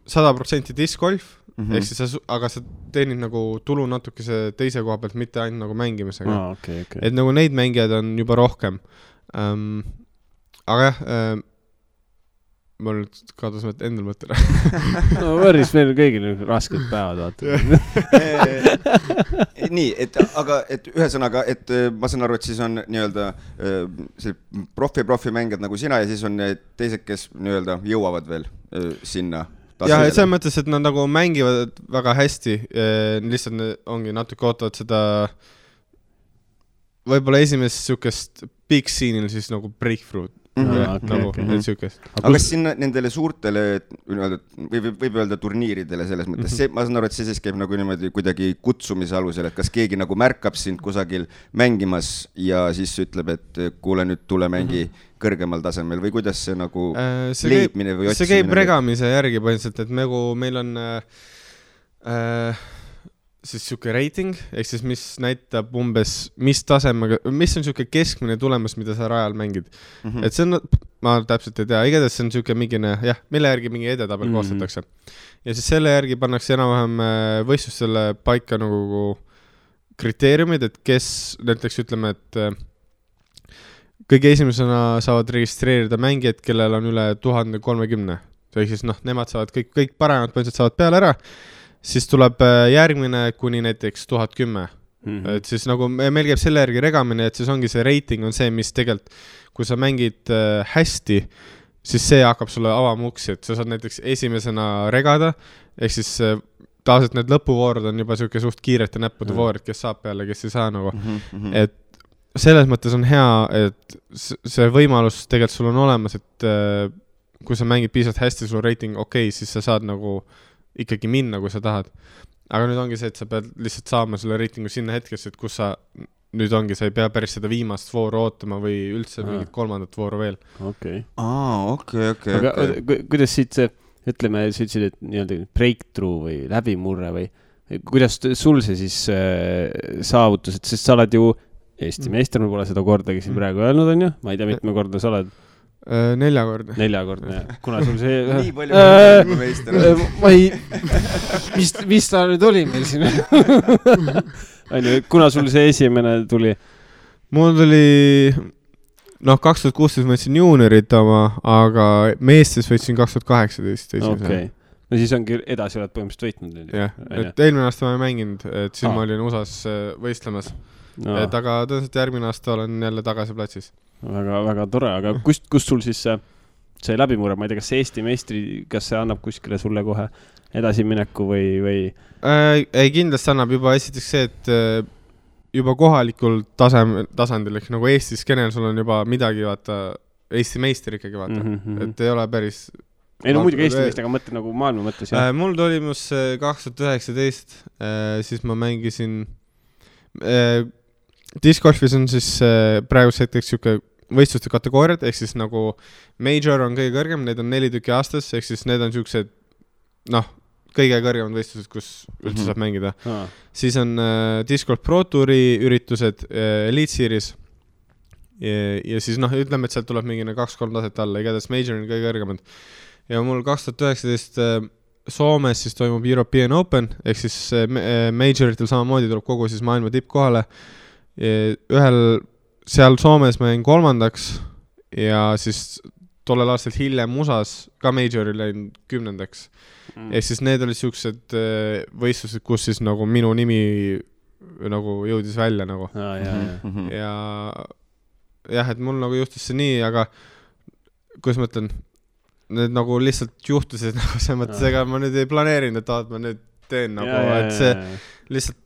100% discgolf, ehk siis aga sa teenid nagu tulu natukese teise koha pealt, mitte ainult nagu mängimisega.
Okay.
Et nagu neid mängijad on juba rohkem. Aga jah, ma nüüd kadus endal mõttele.
No võrris meil kõigil rasked päevad, vaata.
Nii, et ühesõnaga, et ma saan aru, et siis on nii-öelda profi mängijad nagu sina ja siis on teised, kes nii-öelda jõuavad veel sinna.
Ja et selles mõttes, et nad nagu mängivad väga hästi, lihtsalt ongi natuke ootavad seda võib-olla esimest sükest big scene'il siis nagu breakthrough.
Okay. Aga kas sinna nendele suurtele võib öelda turniiridele selles mõttes, ma saan aru, et see siis käib nagu niimoodi kuidagi kutsumise alusel, et kas keegi nagu märkab sind kusagil mängimas ja siis ütleb, et kuule nüüd tule mängi kõrgemal tasemel või kuidas see nagu leidmine või otsimine?
See käib regamise järgi põhimõtteliselt, et meil on siis siuke rating, ehk siis mis näitab umbes, mis tasemega, mis on siuke keskmine tulemus, mida sa rajal mängid. Et see on, ma täpselt ei tea, igatahes see on siuke mingine, jah, mille järgi mingi edetabel koostatakse. Ja siis selle järgi pannakse enam-vähem võistlustele paika nagu kriteeriumid, et kes näiteks ütleme, et kõige esimesena saavad registreerida mängijad, kellel on üle 1030. Ehk siis nemad saavad kõik paremad põhimõtteliselt saavad peale ära. Siis tuleb järgmine kuni näiteks 1010. Et siis nagu meil käib selle järgi regamine, et siis ongi see rating on see, mis tegelikult, kui sa mängid hästi, siis see hakkab sulle avama uksi, et sa saad näiteks esimesena regada, ehk siis tavaliselt need lõpuvoorud on juba siuke suht kiirete näppude voorid, kes saab peale, kes ei saa nagu. Et selles mõttes on hea, et see võimalus tegelikult sul on olemas, et kui sa mängid piisavalt hästi, sul rating okei, siis sa saad nagu ikkagi minna, kui sa tahad. Aga nüüd ongi see, et sa pead lihtsalt saama selle reitingu sinna hetkesse, et kus sa nüüd ongi, sa ei pea päris seda viimast vooru ootama või üldse mingit kolmandat vooru veel.
Okei.
Aga
kuidas siit see, ütleme, sa ütlesid, et nii-öelda breakthrough või läbimurre või kuidas sul see siis saavutus, et sest sa oled ju Eesti meister, ma pole seda kordagi siin praegu öelnud, on ju? Ma ei tea, mitme korda sa oled?
4 korda.
4 korda, jah. Kuna sul see...
Nii palju meister.
Ma ei... Mis ta nüüd oli meil siin? Kuna sul see esimene tuli?
Mul tuli... 2016 ma võtsin juuniorit oma, aga meestes võtsin 2018 esimese.
Okei. No siis ongi edasi oled põhimõtteliselt võitnud.
Jah, et eelmine aasta ma ei mänginud, et siis ma olin USAs võistlemas. Et aga tõenäoliselt järgmine aasta olen jälle tagasi platsis.
Väga tore, aga kust sul siis see läbimurre, ma ei tea, kas see Eesti meistri, kas see annab kuskile sulle kohe edasimineku või?
Ei, kindlasti annab juba esiteks see, et juba kohalikul tasandil, ehk nagu Eesti skeenel sul on juba midagi, vaata, Eesti meister ikkagi, vaata, et ei ole päris...
Ei no muidugi Eesti meist, aga mõtle nagu maailma mõttes.
Mul toimus 2019, siis ma mängisin... Discgolfis on siis praegu hetkeks siuke võistluste kategooriad, ehk siis nagu major on kõige kõrgem, need on 4 tükki aastas, ehk siis need on siuksed, kõige kõrgemad võistlused, kus üldse saab mängida. Siis on Discgolf Pro Touri üritused, Elite Series ja siis ütleme, et sealt tuleb mingine 2-3 taset alla, igatahes major on kõige kõrgemad. ja mul 2019 Soomes siis toimub European Open, ehk siis majoritel samamoodi tuleb kogu siis maailma tipp kohale. Seal Soomes ma jäin 3. ja siis tollel aastal hiljem USAs ka majoril jäin 10. Ehk siis need olid siuksed võistlused, kus siis nagu minu nimi nagu jõudis välja nagu. Ja jah, et mul nagu juhtus see nii, aga kuidas ma ütlen, need nagu lihtsalt juhtusid nagu see mõttes, ega ma nüüd ei planeerinud, et ma nüüd teen nagu, et see lihtsalt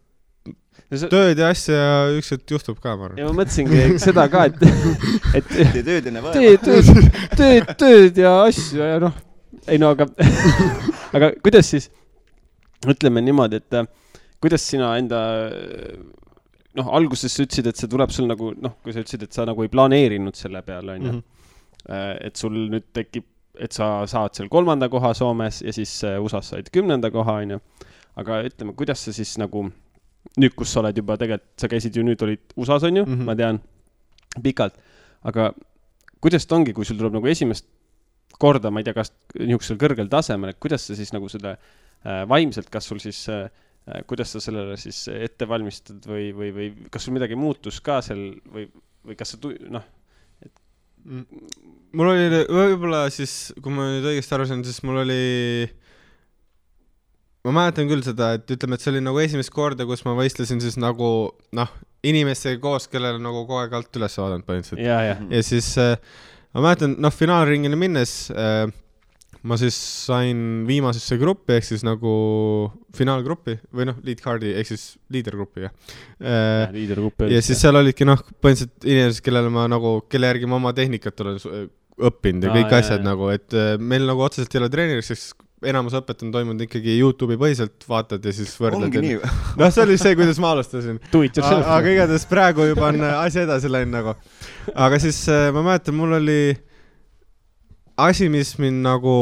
tööd ja asja ja ükskord juhtub ka, ma arvan.
Ja ma mõtlesingi seda ka, et
tööd enne vaeva.
Tööd ja asju ja noh, ei no aga kuidas siis, ütleme niimoodi, et kuidas sina enda, noh, alguses sa ütlesid, et see tuleb sul nagu, noh, kui sa ütlesid, et sa nagu ei planeerinud selle peale, on ju, et sul nüüd tekib, et sa saad seal 3. koha Soomes ja siis USAs said 10. koha, on ju, aga ütleme, kuidas sa siis nagu nüüd, kus sa oled juba tegelikult, sa käisid ju nüüd olid USAs, on ju, ma tean, pikalt, aga kuidas ta ongi, kui sul tuleb nagu esimest korda, ma ei tea, kas niisugusel kõrgel tasemel, et kuidas sa siis nagu seda vaimselt, kas sul siis, kuidas sa sellele siis ette valmistad või kas sul midagi muutus ka seal või kas sa, noh,
mul oli võib-olla siis, kui ma nüüd õigesti aru sain, siis mul oli ma mäletan küll seda, et ütleme, et see oli nagu esimest korda, kus ma võistlesin siis nagu, noh, inimestega koos, kellele nagu kogu aeg alt üles vaadanud põhimõtteliselt. Ja siis ma mäletan, noh, finaalringile minnes ma siis sain viimasesse gruppi, ehk siis nagu finaalgruppi või noh, lead card'i, ehk siis liidergruppi, ja siis seal olidki, noh, põhimõtteliselt inimesed, kellele ma nagu, kelle järgi ma oma tehnikat olen õppinud ja kõik asjad nagu, et meil nagu otseselt ei ole treeneriks, sest enamus õpet on toimunud ikkagi YouTube'i põhiselt, vaatad ja siis võrdled.
Ongi nii.
Noh, see oli see, kuidas ma alustasin. Aga igatahes praegu juba on asi edasi läinud nagu. Aga siis ma mäletan, mul oli asi, mis mind nagu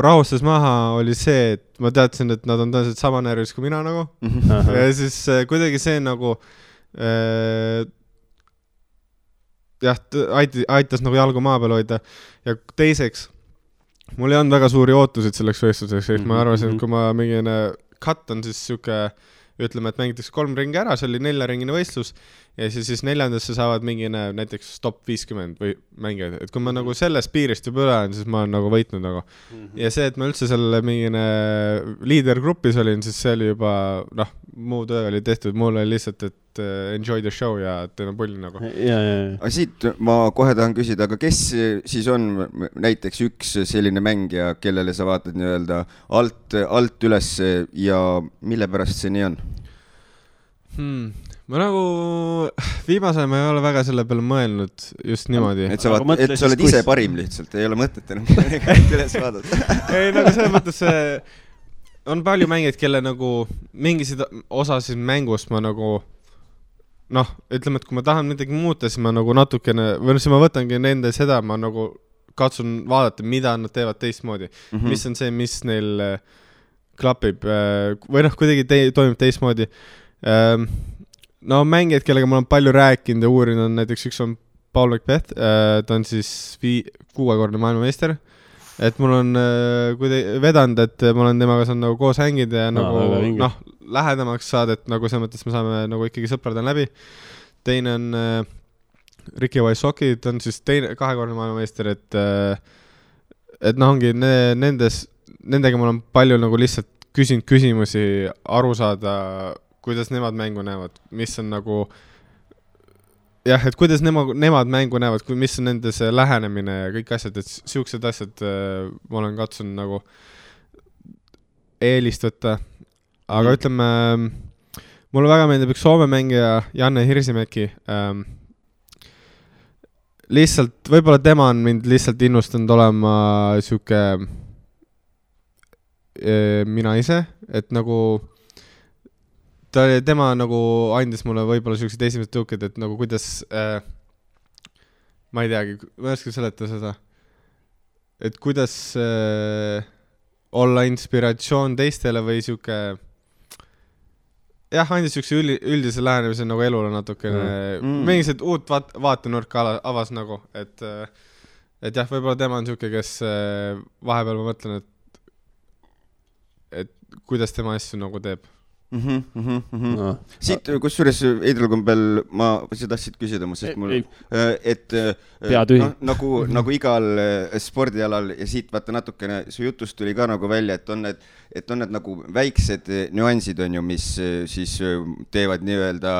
rahustas maha, oli see, et ma teadsin, et nad on tõenäoliselt sama närvis kui mina nagu. Ja siis kuidagi see nagu aitas nagu jalgu maa peal hoida. Ja teiseks, mul ei olnud väga suuri ootusid selleks võistluseks, ma arvasin, et kui ma mingine cut on siis siuke, ütleme, et mängitakse 3 ringi ära, see oli 4-ringine võistlus ja siis 4. saavad mingine näiteks top 50 või mängijad, et kui ma nagu sellest piirist juba üle olen, siis ma olen nagu võitnud nagu. Ja see, et ma üldse selle mingine liidergrupis olin, siis see oli juba, noh, muu töö oli tehtud, mul oli lihtsalt, et enjoy the show ja teeme pulli nagu.
Aga siit ma kohe tahan küsida, aga kes siis on näiteks üks selline mängija, kellele sa vaatad nii-öelda alt üles ja mille pärast see nii on?
Ma nagu viimase ma ei ole väga selle peale mõelnud just niimoodi.
Et sa oled ise parim lihtsalt, ei ole mõtet enam üles vaadata.
Ei, nagu selles mõttes on palju mängijaid, kelle nagu mingisid osasid mängust ma nagu noh, ütleme, et kui ma tahan midagi muuta, siis ma nagu natukene, või siis ma võtangi nende seda, ma nagu katsun vaadata, mida nad teevad teistmoodi. Mis on see, mis neil klapib või noh, kuidagi toimub teistmoodi. No mängijad, kellega ma olen palju rääkinud ja uurinud, on näiteks üks on Paul Macbeth, ta on siis 6-korne maailmameister, et mul on vedanud, et ma olen temaga saanud nagu koos hängida ja nagu noh, lähedamaks saada, et nagu selles mõttes me saame nagu ikkagi sõpradel läbi. Teine on Ricky Wysocki, ta on siis 2-korne maailmameister, et noh, ongi nendega ma olen palju nagu lihtsalt küsinud küsimusi, aru saada, kuidas nemad mängu näevad, mis on nagu jah, et kuidas nemad mängu näevad, mis on nende see lähenemine ja kõik asjad, et siuksed asjad ma olen katsunud nagu eelist võtta. Aga ütleme, mulle väga meeldib üks Soome mängija Janne Hirsimäki. Lihtsalt, võib-olla tema on mind lihtsalt innustanud olema siuke mina ise, et nagu tema nagu andis mulle võib-olla sellised esimesed tõuked, et nagu kuidas ma ei teagi, ma ei oska seletada seda, et kuidas olla inspiratsioon teistele või siuke jah, andis siukse üldise lähenemise nagu elule natukene mingised uut vaatenurka avas nagu, et et jah, võib-olla tema on siuke, kes vahepeal ma mõtlen, et kuidas tema asju nagu teeb.
No. Siit, kusjuures Eidral Kombel, ma tahtsid küsida, sest mul, et nagu igal spordialal ja siit vaata natukene, su jutust tuli ka nagu välja, et on need nagu väiksed nüansid on ju, mis siis teevad nii-öelda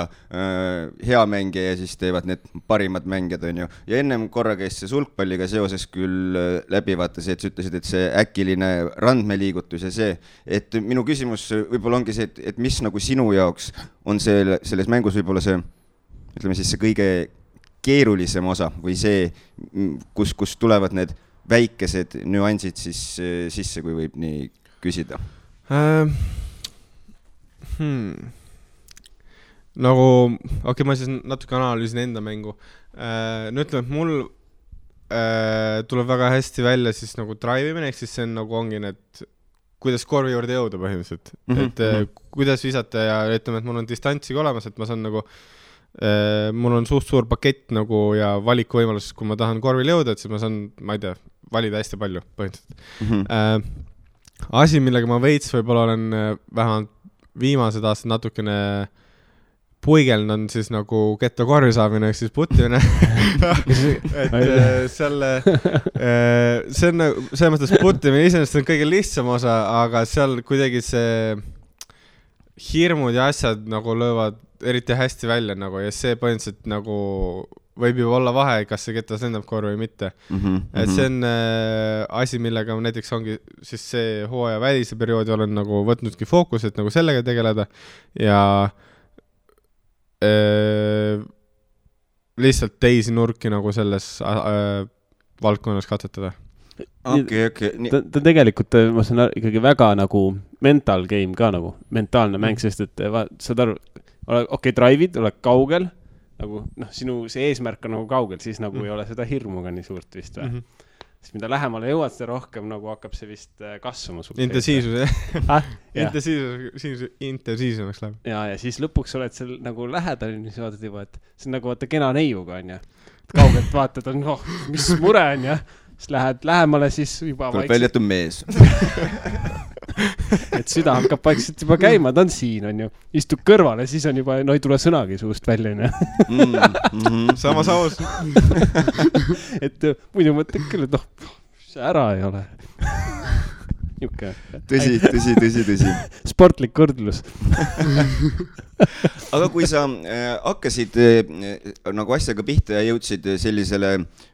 hea mängija ja siis teevad need parimad mängijad on ju. Ja ennem korra käis see sulgpalliga seoses küll läbi vaata see, et sa ütlesid, et see äkiline randmeliigutus ja see, et minu küsimus võib-olla ongi see, et mis nagu sinu jaoks on selles mängus võib-olla see, ütleme siis see kõige keerulisem osa või see, kus tulevad need väikesed nüansid siis sisse, kui võib nii küsida?
Nagu, ma siis natuke analüüsin enda mängu. Nüüd ütleme, et mul tuleb väga hästi välja siis nagu drive'imine, ehk siis see on nagu ongi need kuidas korvi juurde jõuda põhimõtteliselt, et kuidas visata ja ütleme, et mul on distantsiga olemas, et ma saan nagu, mul on suur pakett nagu ja valikuvõimalus, kui ma tahan korvil jõuda, et siis ma saan, ma ei tea, valida hästi palju põhimõtteliselt. Asi, millega ma veits võib-olla olen vähemalt viimased aastad natukene puigeln on siis nagu ketta korvi saamine, ehk siis puttimine. et see on selles mõttes puttimine iseenesest on kõige lihtsam osa, aga seal kuidagi see hirmud ja asjad nagu löövad eriti hästi välja nagu, ja see põhimõtteliselt nagu võib ju olla vahe, kas see ketas lendab korvi või mitte. Et see on asi, millega näiteks ongi siis see hooaja välise perioodi olen nagu võtnudki fookus, et nagu sellega tegeleda ja lihtsalt teisi nurki nagu selles valdkonnas katsetada.
Okay. Ta tegelikult, ma saan ikkagi väga nagu mental game ka nagu, mentaalne mäng, sest et saad aru, drive'id, oled kaugel, nagu sinu see eesmärk on nagu kaugel, siis nagu ei ole seda hirmuga nii suurt vist või? Siis mida lähemale jõuad, seda rohkem nagu hakkab see vist kasvama.
Intensiivsus, intensiivsemaks läheb.
Ja siis lõpuks oled seal nagu lähedal, siis vaatad juba, et see on nagu vaata kena neiuga on ja kaugelt vaatad, on mis mure on ja siis lähed lähemale, siis juba
vaikselt. Välja, et on mees.
Et süda hakkab vaikselt juba käima, ta on siin on ju, istub kõrvale, siis on juba, ei tule sõnagi suust välja
Samas aus.
Et muidu mõtled küll, et see ära ei ole.
Tõsi.
Sportlik kõrdlus.
Aga kui sa hakkasid nagu asjaga pihta ja jõudsid sellisele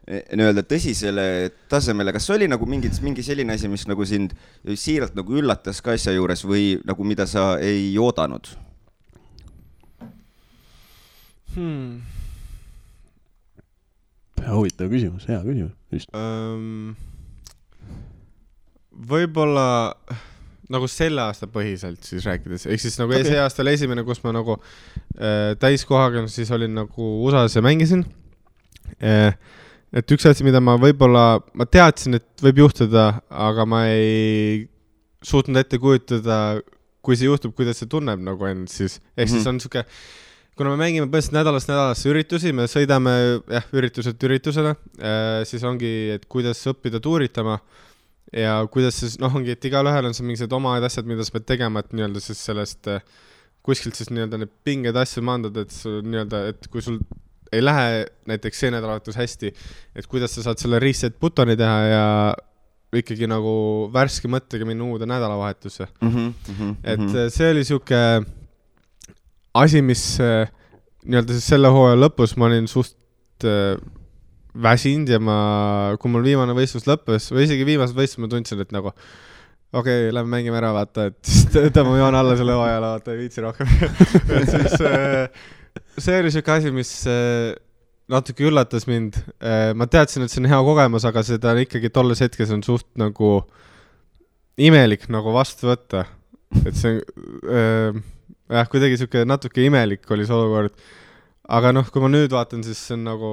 nii-öelda tõsisele tasemele, kas oli nagu mingi selline asi, mis nagu sind siiralt nagu üllatas ka asja juures või nagu mida sa ei oodanud?
Huvitav küsimus, hea küsimus.
Võib-olla nagu selle aasta põhiselt siis rääkides, ehk siis nagu see aasta oli esimene, kus ma nagu täiskohaga siis olin nagu USA-s ja mängisin. Et üks asi, mida ma võib-olla, ma teadsin, et võib juhtuda, aga ma ei suutnud ette kujutada, kui see juhtub, kuidas see tunneb nagu end siis. Ehk siis on siuke, kuna me mängime põhimõtteliselt nädalasse üritusi, me sõidame ürituselt üritusele, siis ongi, et kuidas õppida tuuritama ja kuidas siis, ongi, et igalühel on see mingised omad asjad, mida sa pead tegema, et nii-öelda siis sellest kuskilt siis nii-öelda need pinged asju mandad, et nii-öelda, et kui sul ei lähe näiteks see nädalavahetus hästi, et kuidas sa saad selle reset buttoni teha ja ikkagi nagu värske mõttega minna uude nädalavahetusse. Et see oli siuke asi, mis nii-öelda siis selle hooaja lõpus ma olin suht väsinud ja kui mul viimane võistlus lõppes või isegi viimased võistlus ma tundsin, et nagu lähme mängime ära, vaata, et tõmbame joon alla selle hooajale, vaata, ei viitsi rohkem. Et siis see oli siuke asi, mis natuke üllatas mind. Ma teadsin, et see on hea kogemus, aga seda ikkagi tolles hetkes on suht nagu imelik nagu vastu võtta. Et see kuidagi siuke natuke imelik oli see olukord. Aga kui ma nüüd vaatan, siis see on nagu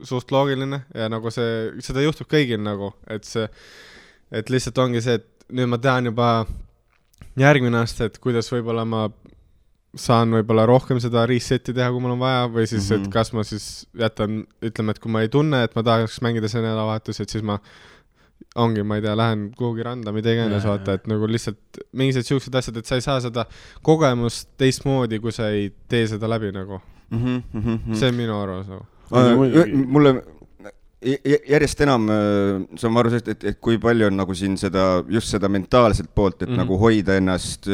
suht loogiline ja nagu seda juhtub kõigil nagu, et lihtsalt ongi see, et nüüd ma tean juba järgmine aasta, et kuidas võib-olla ma saan võib-olla rohkem seda reset'i teha, kui mul on vaja, või siis, et kas ma siis jätan, ütleme, et kui ma ei tunne, et ma tahaks mängida see nädalavahetus, et siis ma ongi, ma ei tea, lähen kuhugi randa, mida iganes vaata, et nagu lihtsalt mingised siuksed asjad, et sa ei saa seda kogemust teistmoodi, kui sa ei tee seda läbi nagu. See on minu arvamus nagu.
Mulle järjest enam saan ma aru sellest, et kui palju on nagu siin seda, just seda mentaalset poolt, et nagu hoida ennast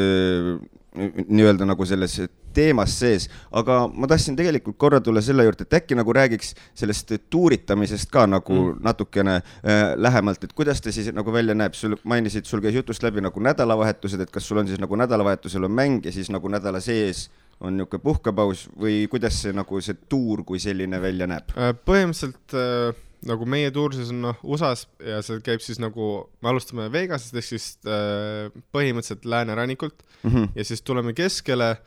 nii-öelda nagu selles teemas sees, aga ma tahtsin tegelikult korra tulla selle juurde, et äkki nagu räägiks sellest tuuritamisest ka nagu natukene lähemalt, et kuidas te siis nagu välja näeb, sul mainisid, sul käis jutust läbi nagu nädalavahetused, et kas sul on siis nagu nädalavahetusel on mäng ja siis nagu nädala sees on niuke puhkepaus või kuidas see nagu see tuur kui selline välja näeb?
Põhimõtteliselt nagu meie tuur siis on USAs ja see käib siis nagu, me alustame Vegasest ehk siis põhimõtteliselt läänerannikult ja siis tuleme keskele,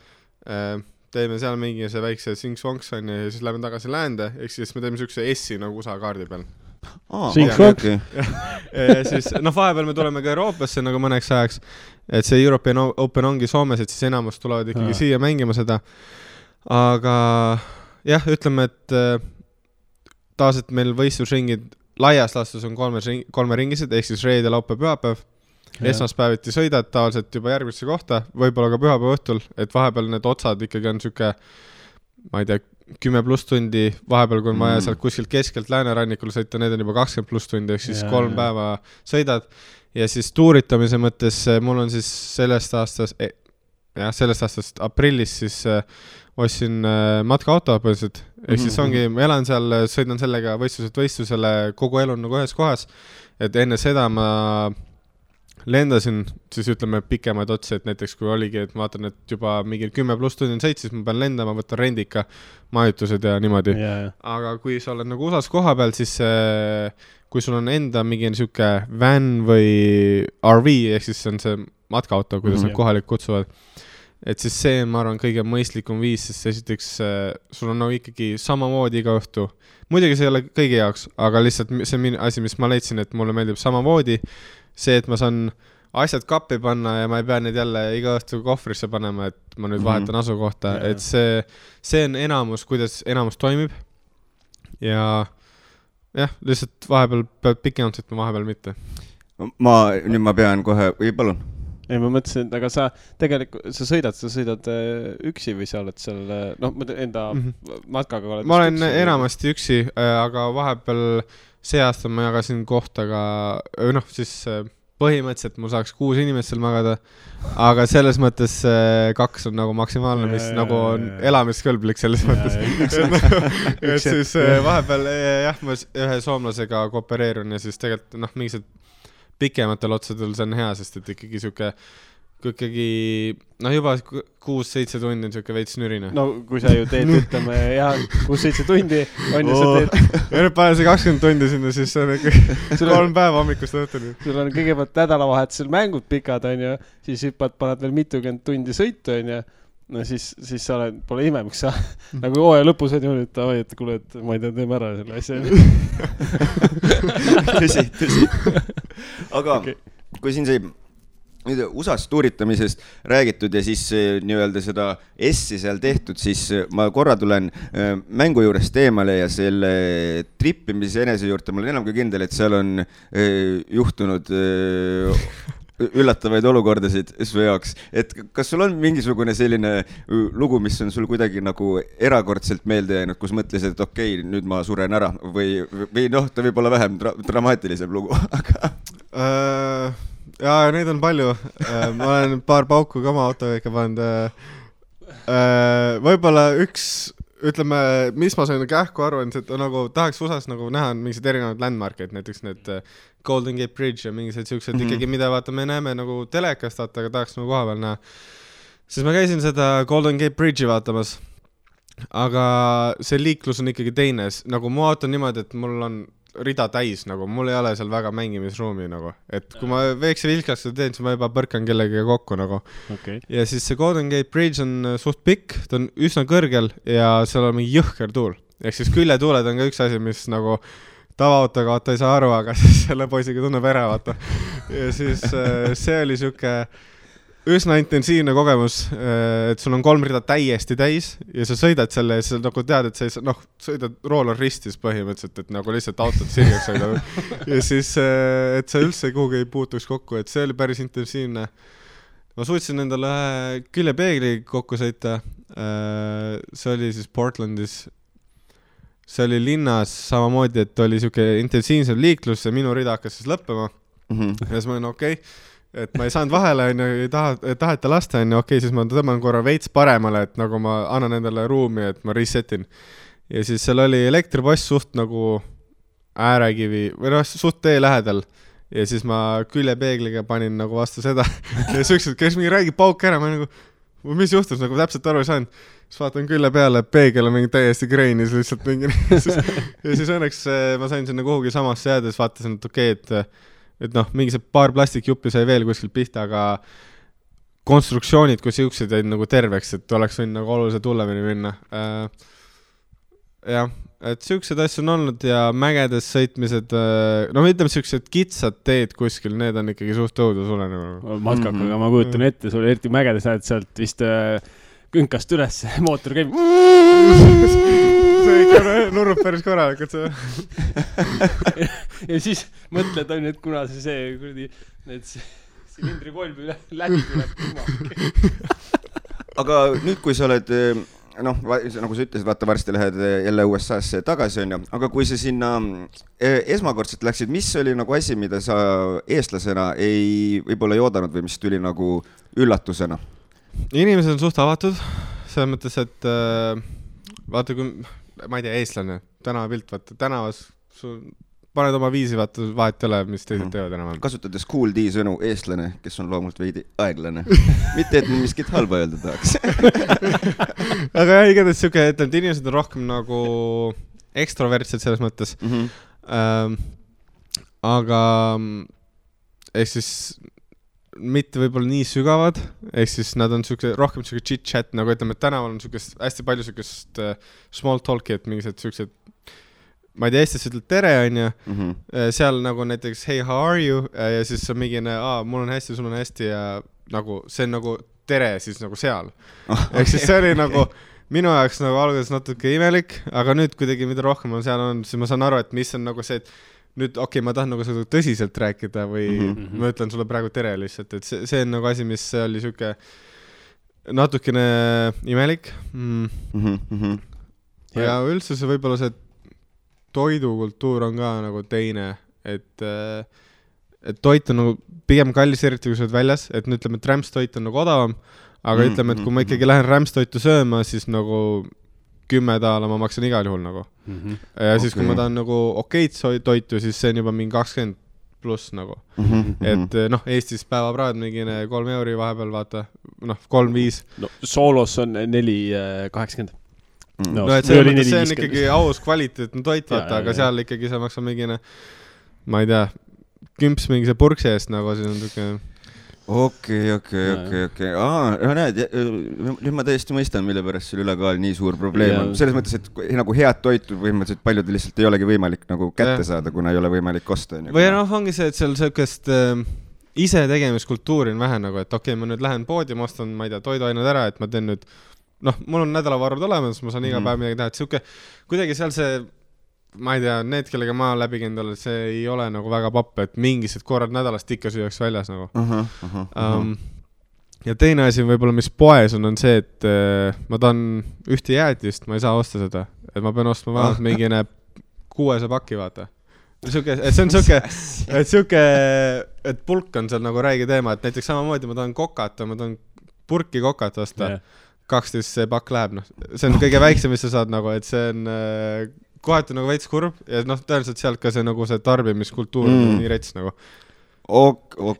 teeme seal mingi see väikse sing-songs on ja siis läheme tagasi läände, ehk siis me teeme siukse S-i nagu USA kaardi peal.
Sing-songs?
Ja siis, vahepeal me tuleme ka Euroopasse nagu mõneks ajaks, et see European Open ongi Soomes, et siis enamus tulevad ikkagi siia mängima seda. Aga jah, ütleme, et taas, et meil võistlusringid laias laastus on kolme ringised, ehk siis reede, laupäev, pühapäev. Esmaspäeviti sõidad tavaliselt juba järgmisse kohta, võib-olla ka pühapäeva õhtul, et vahepeal need otsad ikkagi on siuke, ma ei tea, 10+ tundi, vahepeal kui on vaja sealt kuskilt keskelt läänerannikul sõita, need on juba 20+ tundi, ehk siis 3 päeva sõidad. Ja siis tuuritamise mõttes mul on siis sellest aastast aprillis siis ostsin matkaauto põhiliselt, ehk siis ongi, ma elan seal, sõidan sellega võistlusele, kogu elu on nagu ühes kohas, et enne seda ma lendasin, siis ütleme pikemaid otsi, et näiteks kui oligi, et ma vaatan, et juba mingi 10+ tundi on sõit, siis ma pean lendama, võtan rendika, majutused ja niimoodi. Aga kui sa oled nagu USAs koha peal, siis kui sul on enda mingi siuke van või RV, ehk siis on see matkaauto, kuidas nad kohalik kutsuvad, et siis see, ma arvan, kõige mõistlikum viis, sest esiteks sul on nagu ikkagi samamoodi iga õhtu. Muidugi see ei ole kõigi jaoks, aga lihtsalt see on asi, mis ma leidsin, et mulle meeldib samamoodi. See, et ma saan asjad kappi panna ja ma ei pea neid jälle iga õhtu kohvrisse panema, et ma nüüd vahetan asukohta, et see on enamus, kuidas enamus toimib. Ja jah, lihtsalt vahepeal pead pikemalt sõitma, vahepeal mitte.
Nüüd ma pean kohe, või palun?
Ei, ma mõtlesin, et aga sa tegelikult, sa sõidad üksi või sa oled seal, enda matkaga oled?
Ma olen enamasti üksi, aga vahepeal see aasta ma jagasin kohtaga, siis põhimõtteliselt mul saaks 6 inimest seal magada, aga selles mõttes 2 on nagu maksimaalne, mis nagu on elamiskõlblik selles mõttes. Et siis vahepeal jah, ma ühe soomlasega koopereerun ja siis tegelikult mingised pikematel otsadel see on hea, sest et ikkagi siuke juba 6-7 tundi on siuke veits nürine.
No kui sa ju teed, ütleme, 6-7 tundi on ju sa teed.
Ja nüüd panen see 20 tundi sinna, siis see on ikkagi 3 päeva hommikust õhtuni.
Sul on kõigepealt nädalavahetusel mängud pikad, on ju, siis paned veel mitukümmend tundi sõitu, on ju. No siis sa oled, pole ime, miks sa nagu hooaja lõpus on ju nüüd, et kuule, et ma ei tea, teeme ära selle asja.
Tõsi. Aga kui siin see USA's tuuritamisest räägitud ja siis nii-öelda seda S-i seal tehtud, siis ma korra tulen mängu juurest eemale ja selle trippimise enese juurde ma olen enam kui kindel, et seal on juhtunud üllatavaid olukordasid su jaoks, et kas sul on mingisugune selline lugu, mis on sul kuidagi nagu erakordselt meelde jäänud, kus mõtlesid, et okei, nüüd ma suren ära või ta võib olla vähem dramaatilisem lugu, aga
ja neid on palju. Ma olen paar pauku ka oma autoga ikka pannud. Võib-olla üks, ütleme, mis ma sain kähku aru, on see, et nagu tahaks USAs nagu näha mingised erinevad landmarkid, näiteks need Golden Gate Bridge ja mingised siuksed ikkagi, mida vaata me näeme nagu telekast, aga tahaks nagu koha peal näha. Siis ma käisin seda Golden Gate Bridge'i vaatamas, aga see liiklus on ikkagi teine. Nagu mu auto on niimoodi, et mul on rida täis, nagu mul ei ole seal väga mängimisruumi nagu, et kui ma veekse vilkaks seda teen, siis ma juba põrkan kellegagi kokku nagu. Ja siis see Golden Gate Bridge on suht pikk, ta on üsna kõrgel ja seal on mingi jõhker tuul, ehk siis küljetuuled on ka üks asi, mis nagu tavaautoga vaata ei saa aru, aga siis selle poisiga tunneb ära vaata. Ja siis see oli siuke, üsna intensiivne kogemus, et sul on 3 rida täiesti täis ja sa sõidad selle ja sa nagu tead, et sa sõidad roolor ristis põhimõtteliselt, et nagu lihtsalt autot sirgeks sõidab. Ja siis, et sa üldse kuhugi ei puutuks kokku, et see oli päris intensiivne. Ma suutsin endale küljepeegli kokku sõita. See oli siis Portlandis. See oli linnas samamoodi, et oli siuke intensiivsem liiklus ja minu rida hakkas siis lõppema. Ja siis ma olin okei. Et ma ei saanud vahele, ei taheta lasta, okei, siis ma tõmban korra veits paremale, et nagu ma annan endale ruumi, et ma resetin. Ja siis seal oli elektripost suht nagu äärekivi, või suht tee lähedal. Ja siis ma küljepeegliga panin nagu vastu seda. Ja süksed, kes mingi räägib pauk ära, ma nagu, mis juhtus, nagu täpselt aru ei saanud. Siis vaatan külle peale, peegel on mingi täiesti kreinis lihtsalt mingi. Ja siis õnneks ma sain sinna kuhugi samasse jääda, siis vaatasin, et okei, et mingi see paar plastikjuppi sai veel kuskil pihta, aga konstruktsioonid, kui siuksed jäid nagu terveks, et oleks võinud nagu oluliselt hullemini minna. Jah, et siuksed asju on olnud ja mägedes sõitmised, ütleme siuksed kitsad teed kuskil, need on ikkagi suht õudu sulle.
Matkakaga ma kujutan ette, sul eriti mägedes lähed sealt vist künkast üles, mootor käib.
See ikka nurrub päris korralikult see.
Ja siis mõtled, et kuna see need silindri kolm läbi tuleb.
Aga nüüd, kui sa oled, nagu sa ütlesid, vaata varsti lähed jälle USA-sse tagasi, on ju, aga kui sa sinna esmakordselt läksid, mis oli nagu asi, mida sa eestlasena ei võib-olla ei oodanud või mis tuli nagu üllatusena?
Inimesed on suht avatud, selles mõttes, et vaata, kui, ma ei tea, eestlane, tänavapilt, vaata, tänavas paned oma viisi, vaata, vahet ei ole, mis teised teevad enam.
Kasutades Cool D sõnu eestlane, kes on loomult veidi aeglane. Mitte, et miskit halba öelda tahaks.
Aga jah, igatahes siuke, et inimesed on rohkem nagu ekstrovertsed selles mõttes. Aga ehk siis mitte võib-olla nii sügavad, ehk siis nad on rohkem chit-chat, nagu ütleme, et tänaval on hästi palju sükest small talk'i, et mingised süksed, ma ei tea, Eestis ütled tere, on ju, seal nagu näiteks hey, how are you, ja siis on mingine, mul on hästi, sul on hästi ja nagu see on nagu tere siis nagu seal. Ehk siis see oli nagu minu jaoks nagu alguses natuke imelik, aga nüüd kuidagi mida rohkem on seal on, siis ma saan aru, et mis on nagu see, et nüüd okei, ma tahan nagu seda tõsiselt rääkida või ma ütlen sulle praegu tere lihtsalt, et see on nagu asi, mis oli siuke natukene imelik. Ja üldse see võib-olla see toidukultuur on ka nagu teine, et toit on nagu pigem kallis, eriti kui sa oled väljas, et ütleme, et rämpstoit on nagu odavam, aga ütleme, et kui ma ikkagi lähen rämpstoitu sööma, siis nagu $10 ma maksan igal juhul nagu. Ja siis kui ma tahan nagu okeid toitu, siis see on juba mingi 20 pluss nagu. Et Eestis päevapraad mingine 3 euri vahepeal vaata, 3-5.
Soolos on 4.80.
Et see on ikkagi aus kvaliteetne toit vaata, aga seal ikkagi sa maksad mingine, ma ei tea, kümps mingi see purksi eest nagu, siis on tükke.
Okei. Näed, nüüd ma täiesti mõistan, mille pärast sul ülekaal nii suur probleem on. Selles mõttes, et nagu head toitu põhimõtteliselt paljudel lihtsalt ei olegi võimalik nagu kätte saada, kuna ei ole võimalik osta.
Või ongi see, et seal sellist ise tegemiskultuuri on vähe nagu, et okei, ma nüüd lähen poodi, ma ostan, ma ei tea, toiduained ära, et ma teen nüüd, mul on nädalavarud olemas, ma saan iga päev midagi teha, et siuke, kuidagi seal see ma ei tea, need, kellega ma läbi käinud, see ei ole nagu väga papp, et mingised korrad nädalast ikka süüaks väljas nagu. Ja teine asi võib-olla, mis poes on see, et ma tahan ühte jäätist, ma ei saa osta seda, et ma pean ostma vähemalt mingine 6 pakki, vaata. See on siuke, et pulk on seal nagu räige teema, et näiteks samamoodi ma tahan kokata, ma tahan purki kokat osta, 12 pakk läheb, see on kõige väiksem, mis sa saad nagu, et see on kohati nagu veits kurb ja tõenäoliselt sealt ka see nagu see tarbimiskultuur on nii rets nagu.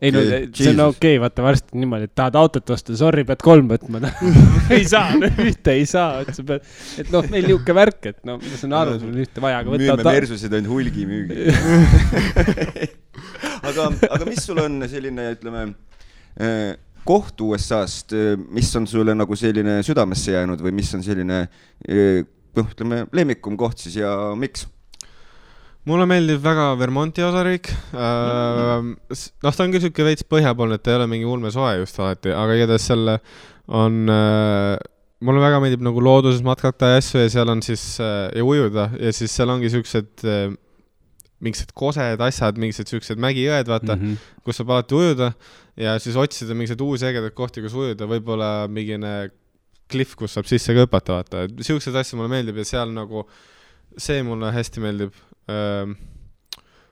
Ei, see on okei, vaata varsti niimoodi, et tahad autot osta, sorry, pead 3 võtma. Ei saa, ühte ei saa. Et meil niuke värk, et ma saan aru, sul on ühte vaja.
Müüme Mersusid ainult hulgi müügi. Aga mis sul on selline, ütleme, koht USA-st, mis on sulle nagu selline südamesse jäänud või mis on selline ütleme, lemmikum koht siis ja miks?
mulle meeldib väga Vermonti osariik. Ta on küll siuke veits põhjapoolne, et ta ei ole mingi ulme soe just alati, aga igatahes selle on, mulle väga meeldib nagu looduses matkata ja asju ja seal on siis ja ujuda ja siis seal ongi siuksed mingised kosed asjad, mingised siuksed mägijõed, vaata, kus saab alati ujuda ja siis otsida mingised uusi ägedad kohti, kus ujuda, võib-olla mingine kliff, kus saab sisse ka hüpata, vaata. Siuksed asju mulle meeldib ja seal nagu see mulle hästi meeldib.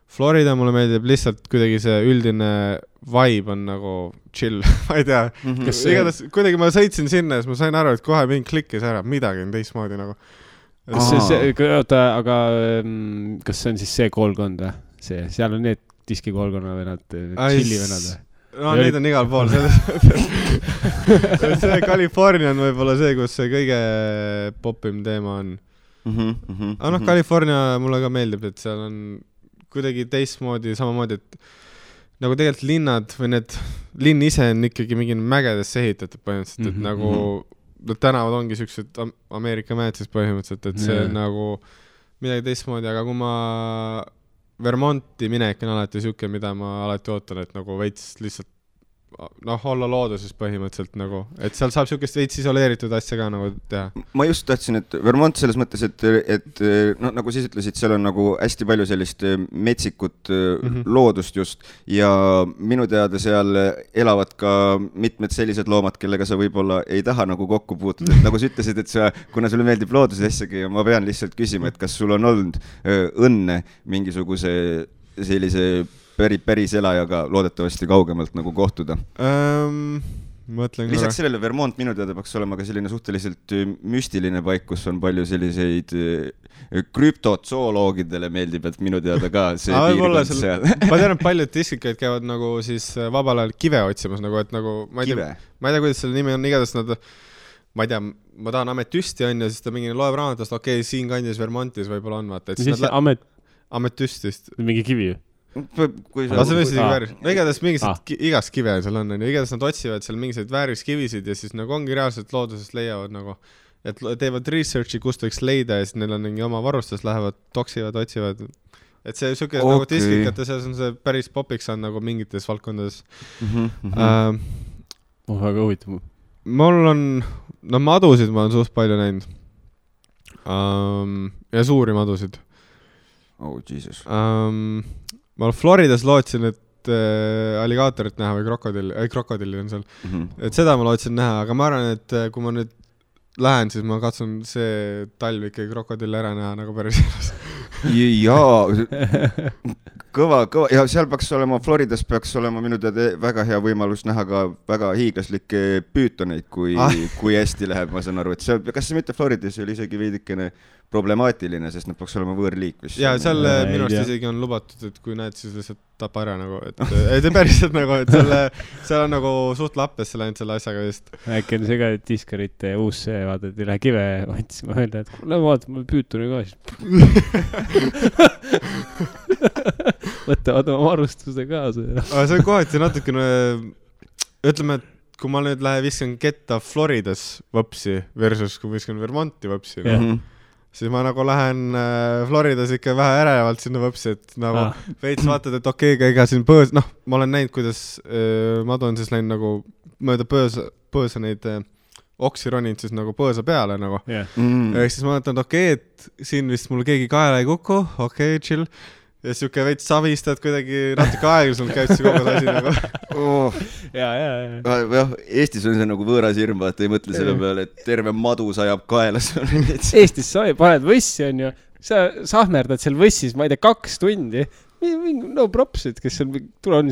Florida mulle meeldib lihtsalt kuidagi see üldine vibe on nagu chill, ma ei tea. Igatahes kuidagi ma sõitsin sinna ja siis ma sain aru, et kohe mind klikkis ära, midagi on teistmoodi nagu.
Aga kas see on siis see koolkond või? Seal on need diskikoolkonna venad, chilli venad või?
No neid on igal pool selles. See California on võib-olla see, kus see kõige popim teema on. Aga California mulle ka meeldib, et seal on kuidagi teistmoodi, samamoodi, et nagu tegelikult linnad või need linn ise on ikkagi mingi mägedesse ehitatud põhimõtteliselt, et nagu tänavad ongi siuksed Ameerika mäed siis põhimõtteliselt, et see on nagu midagi teistmoodi, aga kui ma Vermonti minek on alati siuke, mida ma alati ootan, et nagu veits lihtsalt olla looduses põhimõtteliselt nagu, et seal saab siukest veits isoleeritud asja ka nagu teha.
Ma just tahtsin, et Vermont selles mõttes, et no, nagu siis ütlesid, seal on nagu hästi palju sellist metsikut loodust just ja minu teada seal elavad ka mitmed sellised loomad, kellega sa võib-olla ei taha nagu kokku puutuda. Et nagu sa ütlesid, et kuna sulle meeldib looduse asjagi ja ma pean lihtsalt küsima, et kas sul on olnud õnne mingisuguse sellise päris elajaga loodetavasti kaugemalt nagu kohtuda. Lisaks sellele Vermont minu teada peaks olema ka selline suhteliselt müstiline paik, kus on palju selliseid krüptozooloogidele meeldib, et minu teada ka see piirkond seal.
Ma tean, et paljud diskikaid käivad nagu siis vabal ajal kive otsimas, nagu, et nagu ma ei tea, kuidas selle nimi on, igatahes nad, ma ei tea, ma tahan ametüsti on ja siis ta mingi loeb raamatust, okei, siin kandis Vermontis võib-olla on, vaata.
Mis see ametüstist? Mingi kivi ju?
igatahes mingised igast kive seal on, igatahes nad otsivad seal mingised vääriskivisid ja siis nagu ongi reaalselt loodusest leiavad nagu, et teevad researchi, kust võiks leida ja siis neil on mingi oma varustus, lähevad, toksivad, otsivad, et see siuke nagu diskikate seas on see päris popiks on nagu mingites valdkondades.
Väga huvitav.
Mul on, madusid ma olen suht palju näinud ja suuri madusid.
Oh, Jesus.
Ma Floridas lootsin, et alligaatorit näha või krokodilli on seal. Et seda ma lootsin näha, aga ma arvan, et kui ma nüüd lähen, siis ma katsun see talv ikkagi krokodilli ära näha nagu päris elus.
Jaa, kõva. Ja seal peaks olema, Floridas peaks olema minu teada väga hea võimalus näha ka väga hiiglaslikke püütoneid, kui hästi läheb, ma saan aru. Et seal, kas see mitte Floridas oli isegi veidikene problemaatiline, sest nad peaks olema võõrliik.
Jaa, seal minu arust isegi on lubatud, et kui näed, siis lihtsalt tapa ära nagu, et ei päriselt nagu, et seal on nagu suht lappes läinud selle asjaga vist.
Äkki on see ka diskarite uus see, vaata, et ei lähe kive otsima öelda, et lähe vaata, mul püütuni ka siis. Võtavad oma varustuse kaasa.
Aga see on kohati natukene, ütleme, et kui ma nüüd lähen viskan ketta Floridas võpsi versus kui viskan Vermonti võpsi, siis ma nagu lähen Floridas ikka vähe ärevalt sinna võpsi, et nagu veits vaatad, et okei, ega siin põõs, ma olen näinud, kuidas madu on siis läinud nagu mööda põõsa neid oksi roninud siis nagu põõsa peale nagu. Ehk siis ma mõtlen, et okei, et siin vist mul keegi kaela ei kuku, okei, chill. Ja siuke veits savistad kuidagi natuke aeglaselt käib see kogu asi nagu.
Ja.
Eestis on see nagu võõras hirm, vaata ei mõtle selle peale, et terve madu sajab kaelas.
Eestis sa paned võssi on ju, sa sahmerdad seal võssis, ma ei tea, 2 tundi. No props, et kes on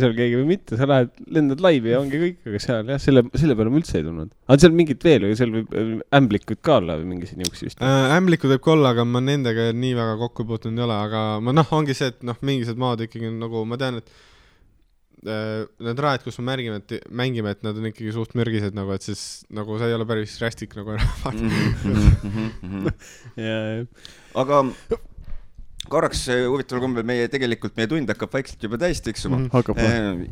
seal keegi või mitte, sa lähed, lendad laivi ja ongi kõik, aga seal jah, selle peale ma üldse ei tulnud. Aga seal mingit veel või seal võib ämblikud ka olla või mingisi niuksi vist?
Ämblikud võib ka olla, aga ma nendega nii väga kokku puutunud ei ole, aga ma ongi see, et mingised maad ikkagi nagu, ma tean, et need raed, kus me mängime, et nad on ikkagi suht mürgised nagu, et siis nagu see ei ole päris rästik nagu
aga korraks huvitaval kombel meie tund hakkab vaikselt juba täis tiksuma.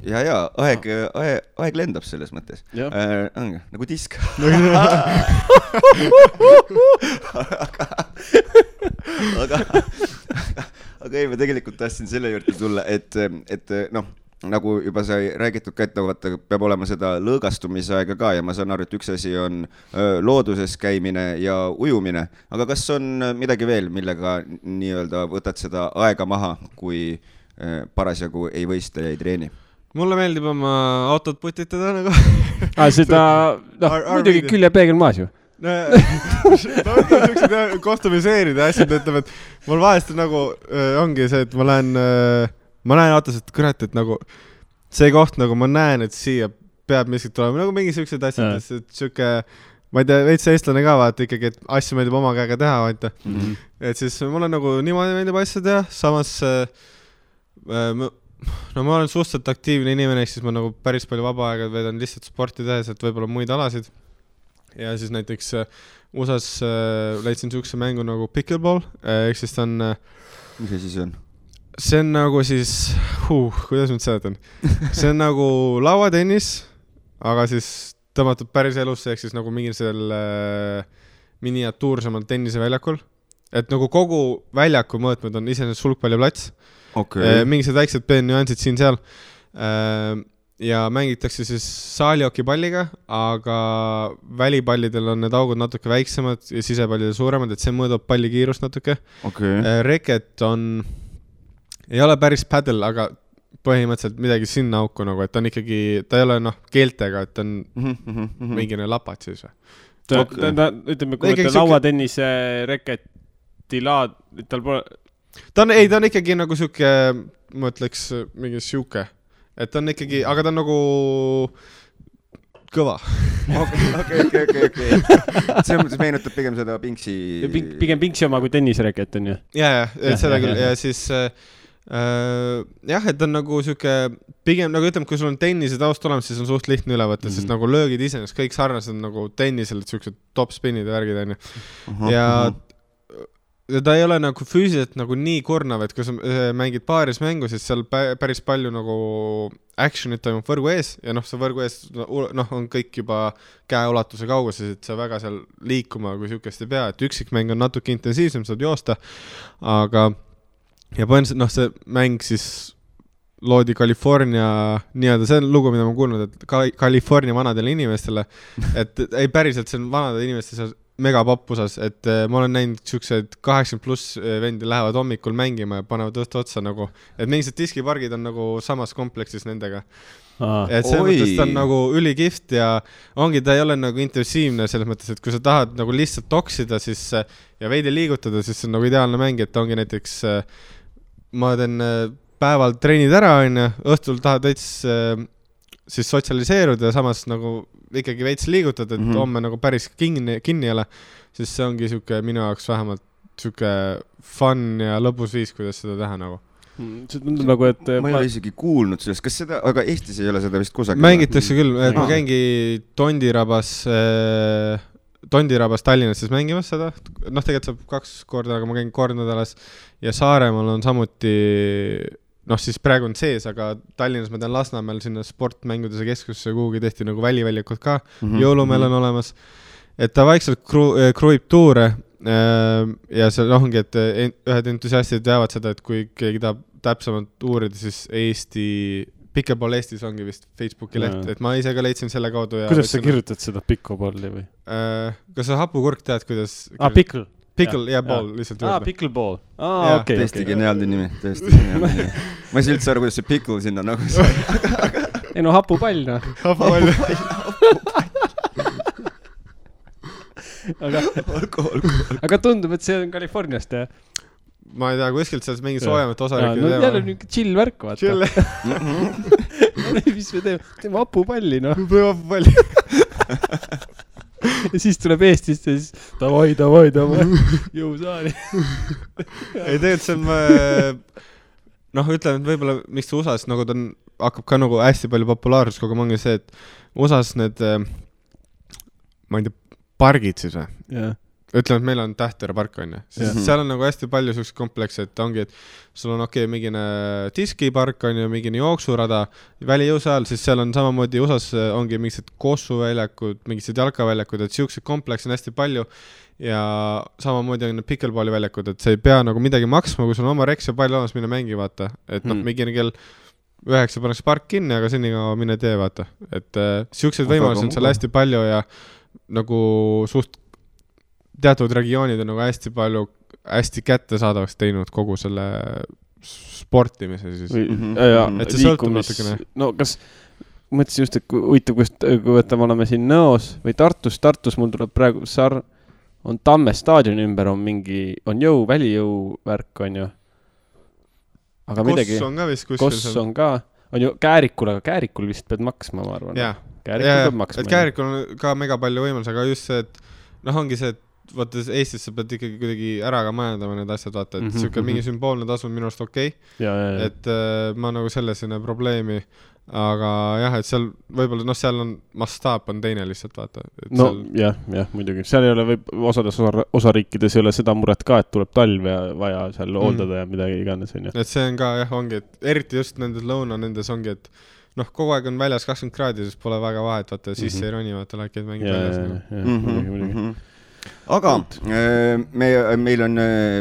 Ja aeg lendab selles mõttes. Nagu disk. aga aga ei, ma tegelikult tahtsin selle juurde tulla, et noh, nagu juba sai räägitud ka, et vaata, peab olema seda lõõgastumise aega ka ja ma saan aru, et üks asi on looduses käimine ja ujumine, aga kas on midagi veel, millega nii-öelda võtad seda aega maha, kui parasjagu ei võista ja ei treeni?
Mulle meeldib oma autot putitada nagu.
Seda, muidugi küljepeegel maas ju.
Kostumiseerida asjad, ütleb, et mul vahest nagu ongi see, et ma näen autos, et kurat, et nagu see koht, nagu ma näen, et siia peab miskit tulema, nagu mingi siuksed asjad, et siuke, ma ei tea, veits eestlane ka vaata ikkagi, et asju meeldib oma käega teha, vaata. Et siis mulle nagu niimoodi meeldib asja teha, samas no ma olen suhteliselt aktiivne inimene, siis ma nagu päris palju vaba aega veedan lihtsalt sporti tehes, et võib-olla muid alasid. Ja siis näiteks USAs leidsin siukse mängu nagu pickleball, ehk siis ta on...
Mis see siis on?
See on nagu siis... kuidas ma seletan? See on nagu lauatennis, aga siis tõmmatud päris elusse, ehk siis nagu mingi selle miniatuursemal tenniseväljakul. Et nagu kogu väljaku mõõtmed on iseenesest sulgpalliplats.
Okay.
Mingised väiksed nüansid siin-seal. Ja mängitakse siis saaliokipalliga, aga välipallidel on need augud natuke väiksemad ja sisepallidel suuremad, et see mõõdab palli kiirust natuke.
Okay.
Reket ei ole päris paddle, aga põhimõtteliselt midagi sinna auku nagu, et on ikkagi, ta ei ole keeltega, et on mingine lapat siis või.
Ütleme, kui ta lauatennise reketi laad, tal pole...
Ta on ikkagi nagu siuke, ma ütleks, mingi siuke. Et ta on ikkagi, aga ta on nagu kõva.
Okay. See meenutab pigem seda Pinksi...
Pigem Pinksi oma kui tennisreket on ju?
Ja, seda küll. Ja siis, et on nagu siuke, pigem nagu ütleme, kui sul on tennise taust olemas, siis on suht lihtne üle võtta, sest nagu löögid iseenesest kõik sarnased nagu tennisel, et siuksed top spinid ja värgid on ju. Ja ta ei ole nagu füüsiliselt nagu nii kurnav, et kui sa mängid paaris mängu, siis seal päris palju nagu actionit toimub võrgu ees ja see võrgu ees on kõik juba käeulatuse kauguses, et sa väga seal liikuma kui siukest ei pea, et üksikmäng on natuke intensiivsem, saad joosta, aga ja põhimõtteliselt see mäng siis loodi California, nii-öelda see on lugu, mida ma kuulnud, et California vanadele inimestele, et ei päriselt see on vanade inimeste seal mega pappusas, et ma olen näinud siuksed 80+ vendi lähevad hommikul mängima ja panevad õhtu otsa nagu, et mingised diskipargid on nagu samas kompleksis nendega. Et see mõttes ta on nagu ülikihvt ja ongi, ta ei ole nagu intensiivne selles mõttes, et kui sa tahad nagu lihtsalt toksida siis, ja veidi liigutada, siis see on nagu ideaalne mäng, et ongi näiteks ma teen päeval treenid ära, õhtul tahad veits siis sotsialiseeruda ja samas nagu ikkagi veits liigutada, et homme nagu päris kinni ei ole, siis see ongi siuke minu jaoks vähemalt siuke fun ja lõbus viis, kuidas seda teha nagu.
See tundub nagu, et...
Ma ei ole isegi kuulnud sellest, kas seda, aga Eestis ei ole seda vist kusagil?
Mängitakse küll, et ma käingi Tondirabas Tallinnas siis mängimas seda, tegelikult saab 2 korda, aga ma käin kord nädalas ja Saaremaal on samuti... siis praegu on sees, aga Tallinnas ma tean Lasnamäel sinna sportmängudese keskusse kuhugi tehti nagu väliväljakud ka, jõulumeel on olemas, et ta vaikselt kruib tuure ja see ongi, et ühed entusiastid teavad seda, et kui keegi tahab täpsemalt uurida, siis Pickleball Eestis ongi vist Facebooki leht, et ma ise ka leidsin selle kaudu.
Kuidas sa kirjutad seda Pickleballi või?
Kas sa hapukurk tead, kuidas...
Pickle
ja ball lihtsalt juurde.
Pickleball.
Okay. Tõesti geniaalne nimi, tõesti geniaalne nimi. Ma ei saa üldse aru, kuidas see pickle sinna nagu sai.
Ei hapupall
Hapupall.
Aga tundub, et see on Californiast, jah?
Ma ei tea, kuskilt selles mingi soojamat osariikid teema.
Jälle niisugune chill värk, vaata.
Chill.
Mis me teeme hapupalli,
Teeme hapupalli.
Ja siis tuleb Eestist ja siis davai, jõusaali.
Ei, tegelikult see on, ütlen, et võib-olla miks see USAs nagu ta hakkab ka nagu hästi palju populaarsus kogu mangi see, et USAs need, ma ei tea, pargid siis või? ütleme, et meil on Tähtera park on ju, siis seal on nagu hästi palju sellised komplekse, et ongi, et sul on mingine diskipark on ju, mingine jooksurada, välijõusaal, siis seal on samamoodi USAs ongi mingised kossuväljakud, mingised jalkaväljakud, et siuksed komplekse on hästi palju ja samamoodi on pickleball'i väljakud, et sa ei pea nagu midagi maksma, kui sul on oma reks ja pall olemas, mine mängi, vaata, et mingine kell 9 pannakse park kinni, aga senikaua mine tee, vaata, et siuksed võimalusi on seal hästi palju ja nagu suht teatud regioonid on nagu hästi palju, hästi kättesaadavaks teinud kogu selle sportimise siis.
Et see sõltub natukene. No kas, mõtlesin just, et huvitav, kui võtame oleme siin Nõos või Tartus mul tuleb praegu on Tamme staadioni ümber on mingi, on välijõu värk on ju. Aga midagi.
Koss on ka vist kuskil.
Koss on ka, on ju Käärikul, aga Käärikul vist pead maksma, ma arvan. Käärikul peab maksma.
Et Käärikul on ka mega palju võimalus, aga just see, et ongi see, et vaata Eestis sa pead ikkagi kuidagi ära ka majandama need asjad, vaata, et siuke mingi sümboolne tasu on minu arust okei. Et ma nagu selles ei näe probleemi, aga jah, et seal võib-olla, seal on mastaap on teine lihtsalt, vaata.
No jah, muidugi. Seal ei ole osades osariikides ei ole seda muret ka, et tuleb talv ja vaja seal hooldada ja midagi iganes.
Et see on ka jah, ongi, et eriti just nendes lõuna nendes ongi, et kogu aeg on väljas 20 kraadi, siis pole väga vahet, vaata, sisse ei roni, vaata, laikeid mängid väljas.
Aga meil on,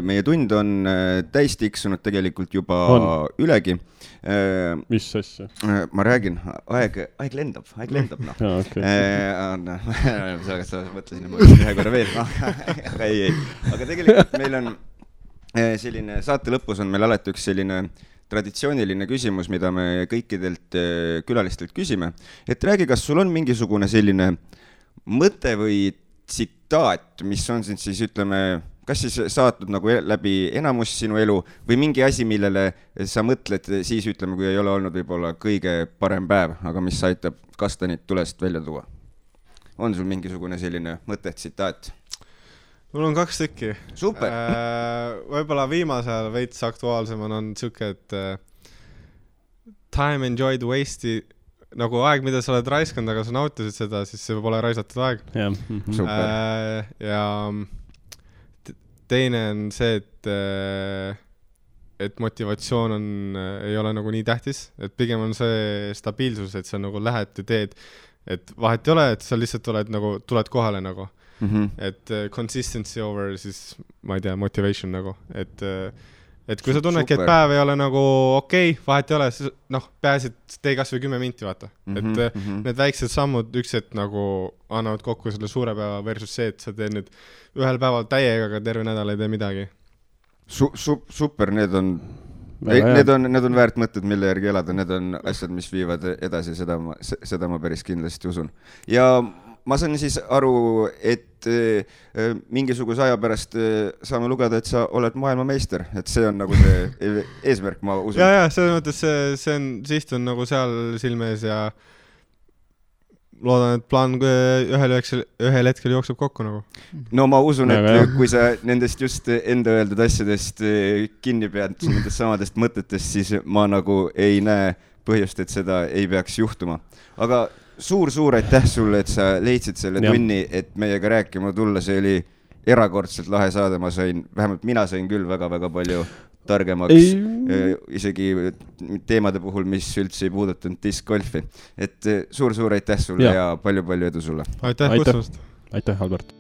meie tund on täis tiksunud tegelikult juba ülegi.
Mis asja?
Ma räägin, aeg lendab no. Sa mõtlesin, et ma ühe korra veel, aga ei. Aga tegelikult meil on selline, saate lõpus on meil alati üks selline traditsiooniline küsimus, mida me kõikidelt külalistelt küsime. Et räägi, kas sul on mingisugune selline mõte või tsitaat, mis on siin siis, ütleme, kas siis saatnud nagu läbi enamus sinu elu või mingi asi, millele sa mõtled siis, ütleme, kui ei ole olnud võib-olla kõige parem päev, aga mis aitab kastanit tulest välja tuua? On sul mingisugune selline mõte, tsitaat?
Mul on 2 tükki.
Super!
Võib-olla viimasel veits aktuaalsemal on siuke, et time enjoyed waste nagu aeg, mida sa oled raiskanud, aga sa nautisid seda, siis see pole raisatud aeg. Ja teine on see, et motivatsioon ei ole nagu nii tähtis, et pigem on see stabiilsus, et sa nagu lähed ja teed, et vahet ei ole, et sa lihtsalt tuled kohale nagu. Et consistency over siis, ma ei tea, motivation nagu, et kui sa tunnedki, et päev ei ole nagu okei, vahet ei ole, peaasi, et tee kas või 10 minti, vaata. Et need väiksed sammud ükselt nagu annavad kokku selle suure päeva versus see, et sa teed nüüd ühel päeval täiega, aga terve nädal ei tee midagi.
Super, need on väärt mõtted, mille järgi elada, need on asjad, mis viivad edasi, seda ma päris kindlasti usun. Ja ma saan siis aru, et mingisuguse aja pärast saame lugeda, et sa oled maailmameister, et see on nagu see eesmärk, ma usun.
Ja, selles mõttes siht on nagu seal silmees ja loodan, et plaan ühel hetkel jookseb kokku nagu.
No ma usun, et kui sa nendest just enda öeldud asjadest kinni pead, nendest samadest mõtetest, siis ma nagu ei näe põhjust, et seda ei peaks juhtuma. Aga suur aitäh sulle, et sa leidsid selle tunni, et meiega rääkima tulla, see oli erakordselt lahe saade, vähemalt mina sain küll väga palju targemaks, isegi teemade puhul, mis üldse ei puudutanud diskgolfi. Et suur aitäh sulle ja palju edu sulle.
Aitäh kutsumast.
Aitäh, Albert.